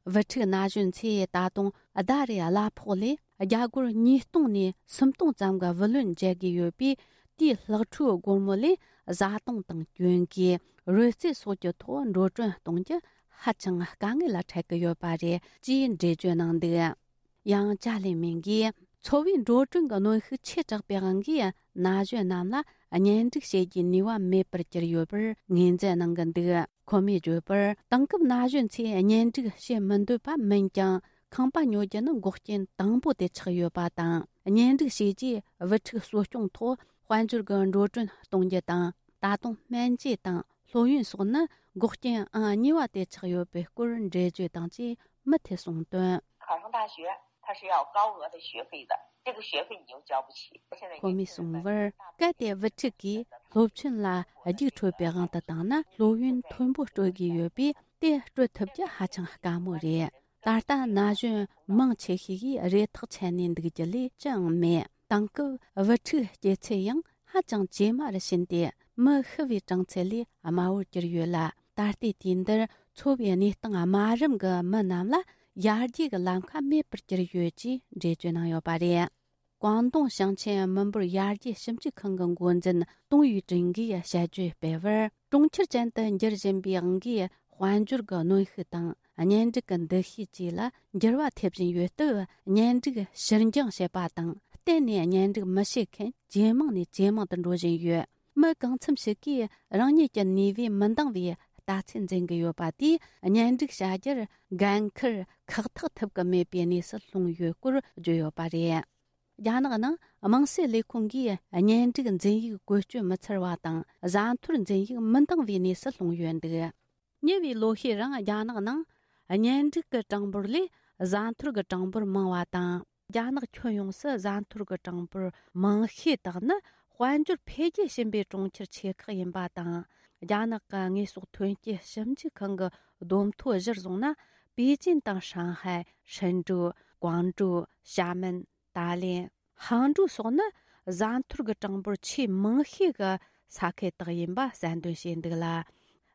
བུ་ཕྲུག་ན་གཞོན་ཚོས་ད་དུང་ཟླ་རེའི་གླ་ཕོགས་ལས་རྒྱ་སྒོར་ཉིས་སྟོང་ནས་སུམ་སྟོང་ཙམ་གྱི་བུ་ལོན་འཇལ་དགོས་ཡོད་པས། དེའི་ལྷག་འཕྲོའི་སྒོར་མོ་ལས་བཟའ་བཏུང་དང་གྱོན་གོས། རོལ་རྩེད་སོགས་ཀྱི་ཐོག་འགྲོ་གྲོན་གཏོང་རྒྱུ་ཧ་ཅང་དཀའ་ངལ་ལ་འཕྲད་ཀྱི་ཡོད་པ་རེད་ཅེས་འགྲེལ་བརྗོད་གནང་འདུག། ཡང་ཅཱ་ལི་མིང་གིས། འཚོ་བའི་འགྲོ་གྲོན་གྱི་གནོན་ཤུགས་ཆེ་དྲགས་པའི་དབང་གིས་ན་གཞོན་རྣམས་ལ་གཉེན་སྒྲིག་བྱེད་རྒྱུའི་ནུས་པ་མེད་པར་གྱུར་ཡོད་པར་ངོས་འཛིན་གནང་གི་འདུག། ཁོ་མོས་བརྗོད་པར། དེང་སྐབས་ན་གཞོན་ཚོས་གཉེན་སྒྲིག་བྱེད་མི་འདོད་པ་མིན་ཀྱང་། ཁང་པ་ཉོ་རྒྱུ་ནི་འགོག་རྐྱེན་དང་པོ་དེ་ཆགས་ཡོད་པ་དང་། གཉེན་སྒྲིག་བྱས་རྗེས་བུ་ཕྲུག་གསོ་སྐྱོང་ཐོག་དཔལ་འབྱོར་གྱི་འགྲོ་གྲོན་གཏོང་རྒྱུ་དང་། ད་དུང་སྨན་བཅོས་དང་སློབ་ཡོན་སོགས་ནི་འགོག་རྐྱེན་ཨང་གཉིས་པ་དེ་ཆགས་ཡོད་པའི་སྐོར་འགྲེལ་བརྗོད་དང་བཅས་མུ་མཐུད་གསུངས་དོན། 考上大学，它是要高额的学费的，这个学费你又交不起。现在 ཁོ་མོས་གསུངས་པར། གལ་ཏེ་བུ་ཕྲུག་གིས་སློབ་ཆེན་ལ་རྒྱུགས་འཕྲོད་པའི་དབང་དུ་བཏང་ན། སློབ་ཡོན་མཐོན་པོ་སྤྲོད་དགོས་ཡོད་པས། དེ་སྤྲོད་ཐུབ་རྒྱུ་ཧ་ཅང་དཀའ་མོ་རེད། ད་ལྟ་ན་གཞོན་མང་ཆེ་ཤོས་ཀྱིས་རེ་ཐག་ཆད་ནས་འདུག་རྒྱུ་ལས་ཅི་ཡང་མེད། དེང་སྐབས་བུ་ཕྲུག་སྐྱེ་ཚད་ཡང་ཧ་ཅང་ཇེ་དམའ་རུ་ཕྱིན་ཏེ། མི་ཤི་བའི་གྲངས་ཚད་ལས་དམའ་བོར་གྱུར་ཡོད་ལ། ད་ལྟའི་དུས་འདིར་འཚོ་བའི་གནས་སྟངས་དམའ་རིམ་གྱི་མི་རྣམས་ལ་ཡར་རྒྱས་ཀྱི་ལམ་ཁ་མེད་པར་གྱུར་ཡོད་ཅེས་འགྲེལ་བརྗོད་གནང་ཡོད་པ་རེད། ཀོང་ཏུང་ཞིང་ཆེན་མི་འབོར་ཡར་རྒྱས་ཞིབ་འཇུག་ཁང་གི་འགོ་འཛིན་ཏུང་ཡུས་ཀྲིན་གྱིས་དཔྱད་བརྗོད་སྤེལ་བར། གྲོང་ཁྱེར་ཅན་དུ་འགྱུར་བཞིན་པའི་དབང་གིས། དཔལ་འབྱོར་གྱི་གནོན་ཤུགས་དང་། གཉེན་སྒྲིག་གི་འདུ་ཤེས་བཅས་ལ་འགྱུར་བ་ཐེབས་བཞིན་ཡོད་སྟབས། གཉེན་སྒྲིག་ཕྱིར་འགྱངས་བྱེད་པ་དང་། གཏན་ནས་གཉེན་སྒྲིག་མི་བྱེད་མཁན་ཇེ་མང་ནས་ཇེ་མང་དུ་འགྲོ་བཞིན་ཡོད། མི་གང་འཚམ་ཞིག་གིས་རང་ཉིད་ཀྱི་ནུས་པས་མི་འདང་བའི་ལྟ་ཚུལ་འཛིན་གྱི་ཡོད་པ་དེས། གཉེན་སྒྲིག་བྱ་རྒྱུར་འགན་འཁུར་ཁག་ཐེག་ཐུབ་ཀྱི་མེད་པའི་གནས་སུ་ལྷུང་ཡོད་སྐོར་བརྗོད་ཡོད་པ་རེད། རྒྱ་ནག་ནང་དམངས་སྲིད་ལས་ཁུངས་ཀྱིས་གཉེན་སྒྲིག་འཛིན་ཡིག་བཀོལ་སྤྱོད་མི་འཚར་བ་དང་། བཟའ་འཐོར་འཛིན་ཡིག་མི་འདང་བའི་གནས་སུ་ལྷུང་ཡོད་འདུག། ཉེ་བའི་ལོ་ཤས་རིང་རྒྱ་ནག་ནང་གཉེན་སྒྲིག་གི་གྲངས་འབོར་ལས་བཟའ་འཐོར་གྱི་གྲངས་འབོར་མང་བ་དང་། རྒྱ་ནག་ཁྱོན་ཡོངས་སུ་བཟའ་འཐོར་གྱི་གྲངས་འབོར་མང་ཤོས་དག་ནི་དཔལ་འབྱོར་འཕེལ་རྒྱས་ཕྱིན་པའི་གྲོང་ཁྱེར་ཆེ་ཁག་ཡིན་པ་དང་། རྒྱ་ནག་གི་དངོས་ཟོག་ཐོན་སྐྱེད་ཞིབ་འཇུག་ཁང་གི་བསྡོམས་ཐོ་གཞིར་བཟུང་ན། པེ་ཅིན་དང་ཧྲང་ཧའེ། ཧྲིན་ཀྲོའུ། ཀོང་ཀྲོའུ། ཞྭ་མེན། ཏཱ་ལེན། ཧང་ཀྲོའུ་སོགས་ནི་བཟའ་འཐོར་གྱི་གྲངས་འབོར་ཆེས་མང་ཤོས་ཀྱི་ས་ཁུལ་དག་ཡིན་པ་གསལ་འདོན་བྱས་འདུག་ལ།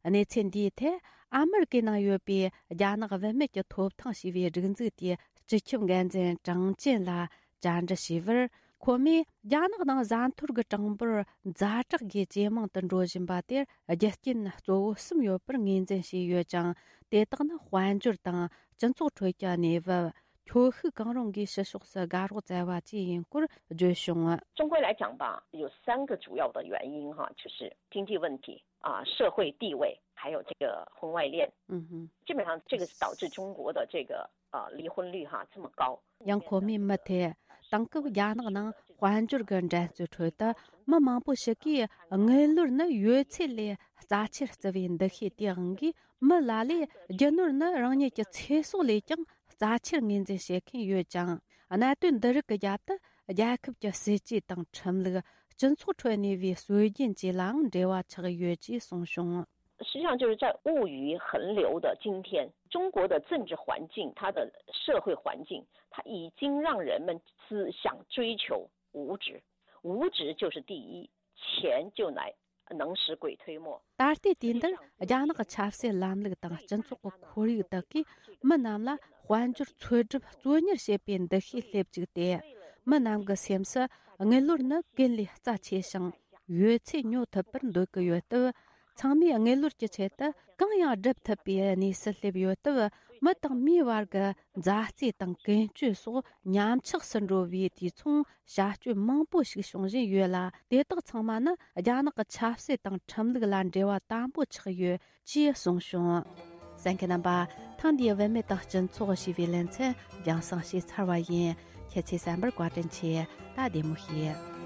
གནས་ཚུལ་འདིའི་ཐད་ཨ་མེ་རི་ཀའི་ནང་ཡོད་པའི་རྒྱ་ནག་བུད་མེད་ཀྱི་ཐོབ་ཐང་ཞེས་པའི་སྒྲིག་འཛུགས་དེའི་སྤྱི་ཁྱབ་འགན་འཛིན་ཀྲང་ཅན་ལ་བཅར་འདྲི་བྱས་པར། ཁོ་མོས་རྒྱ་ནག་ནང་བཟའ་འཐོར་གྱི་གྲངས་འབོར་ཛ་དྲག་སྒོས་ཇེ་མང་དུ་འགྲོ་བཞིན་པ་དེར་རྒྱུ་རྐྱེན་གཙོ་བོ་གསུམ་ཡོད་པར་ངོས་འཛིན་བྱས་ཡོད་ཀྱང་། དེ་དག་ནི་དཔལ་འབྱོར་དང་སྤྱི་ཚོགས་ཁྲོད་ཀྱི་གནས་བབ། ཁྱོ་ཤུག་གང་རུང་གིས་ཕྱི་ཕྱོགས་སུ་དགའ་རོགས་བཙལ་བ་བཅས་ཡིན་སྐོར་བརྗོད་བྱུང་། 中国来讲吧，有三个主要的原因哈，就是经济问题啊、社会地位，还有这个婚外恋。嗯哼。基本上这个是导致中国的这个呃离婚率哈这么高。 ཡང་ཁོ་མོས་མུ་མཐུད། དེང་སྐབས་རྒྱ་ནག་ནང་དཔལ་འབྱོར་གྱི་འགྲན་རྩོད་ཁྲོད་དུ་མི་མང་པོ་ཞིག་གིས་དངུལ་ལོར་ནི་ཡོད་ཚད་ལས་རྩ་ཆེར་བརྩི་བའི་འདུ་ཤེས་དེའི་དབང་གིས། མི་ལ་ལས་རྒྱུ་ནོར་ནི་རང་ཉིད་ཀྱི་ཚེ་སྲོག་ལས་ཀྱང་རྩ་ཆེར་ངོས་འཛིན་བྱེད་མཁན་ཡོད་ཅིང་། གནད་དོན་འདི་རིགས་ཀྱི་རྒྱབ་ཏུ་རྒྱལ་ཁབ་ཀྱི་སྲིད་ཇུས་དང་ཁྲིམས་ལུགས། སྤྱི་ཚོགས་ཁྲོད་གནས་པའི་སྲོལ་རྒྱུན་བཅས་ལའང་འབྲེལ་བ་ཆགས་ཡོད་ཅེས་གསུངས་བྱུང་། 实际上就是在物欲横流的今天，中国的政治环境，它的社会环境，它已经让人们只想追求物质，物质就是第一，钱就来能使鬼推磨。 ད་ལྟའི་དུས་འདིར་རྒྱ་ནག་གི་ཆབ་སྲིད་ལམ་ལུགས་དང་སྤྱི་ཚོགས་ཀྱི་ཁོར་ཡུག་དག་གིས་མི་རྣམས་ལ་དཔལ་འབྱོར་འཚོལ་སྒྲུབ་གཙོ་གཉེར་བྱེད་པའི་འདུ་ཤེས་སླེབས་བཅུག་སྟེ། མི་རྣམས་ཀྱི་སེམས་སུ་དངུལ་ལོར་ནི་ཀུན་ལས་རྩ་ཆེ་ཞིང་ཡོད་ཚད་ཉོ་ཐུབ་པར་འདོད་ཀྱི་ཡོད་སྟབས། ཚང་མས་དངུལ་ལོར་གྱི་ཆེད་དུ་གང་ཡང་སྒྲུབ་ཐུབ་པའི་གནས་སུ་སླེབས་ཡོད་སྟབས། མི་དང་མིའི་བར་གྱི་མཛའ་བརྩེ་དང་ཀུན་སྤྱོད་སོགས་ཉམས་ཆག་སུ་འགྲོ་བའི་དུས་མཚུངས་བྱ་སྤྱོད་མང་པོ་ཞིག་བྱུང་བཞིན་ཡོད་ལ། དེ་དག་ཚང་མ་ནི་རྒྱ་ནག་གི་ཆབ་སྲིད་དང་ཁྲིམས་ལུགས་ལ་འབྲེལ་བ་དམ་པོ་ཆགས་ཡོད་ཅེས་གསུངས་བྱུང་། གསན་མཁན་རྣམ་པ། ཐེངས་འདིའི་བུད་མེད་དང་སྤྱི་ཚོགས་ཞེས་པའི་ལེ་ཚན་རྒྱང་སྲིང་བྱས་ཚར་བ་ཡིན། ཁྱེད་ཚོས་གསན་པར་བཀའ་དྲིན་ཆེ། ད་བདེ་མོ་བྱོས།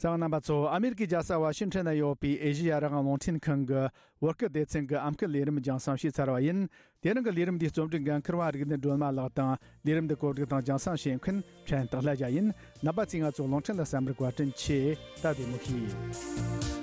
གསན་པ་རྣམ་པ་ཚོ། ཨ་མེ་རི་ཀའི་རྒྱལ་ས་ཝ་ཤིང་ཊོན་ན་ཡོད་པའི་ཨེ་ཤེ་ཡ་རང་དབང་རླུང་འཕྲིན་ཁང་གི་བོད་སྐད་སྡེ་ཚན་གྱི་ཨམ་སྐད་ལས་རིམ་རྒྱང་སྲིང་བྱས་ཚར་བ་ཡིན། དེ་རིང་གི་ལས་རིམ་འདིའི་རྩོམ་སྒྲིག་འགན་འཁུར་བ་རིག་ལྡན་སྒྲོལ་མ་ལགས་དང་། ལས་རིམ་འདི་གོ་སྒྲིག་དང་རྒྱང་སྲིང་བྱེད་མཁན་ཕྲན་སྟག་ལྷ་རྒྱལ་ཡིན། རྣམ་པ་ཚོས་ང་ཚོ་རླུང་འཕྲིན་ལ་གསན་པར་བཀའ་དྲིན་ཆེ། ད་བདེ་མོ་བྱོས།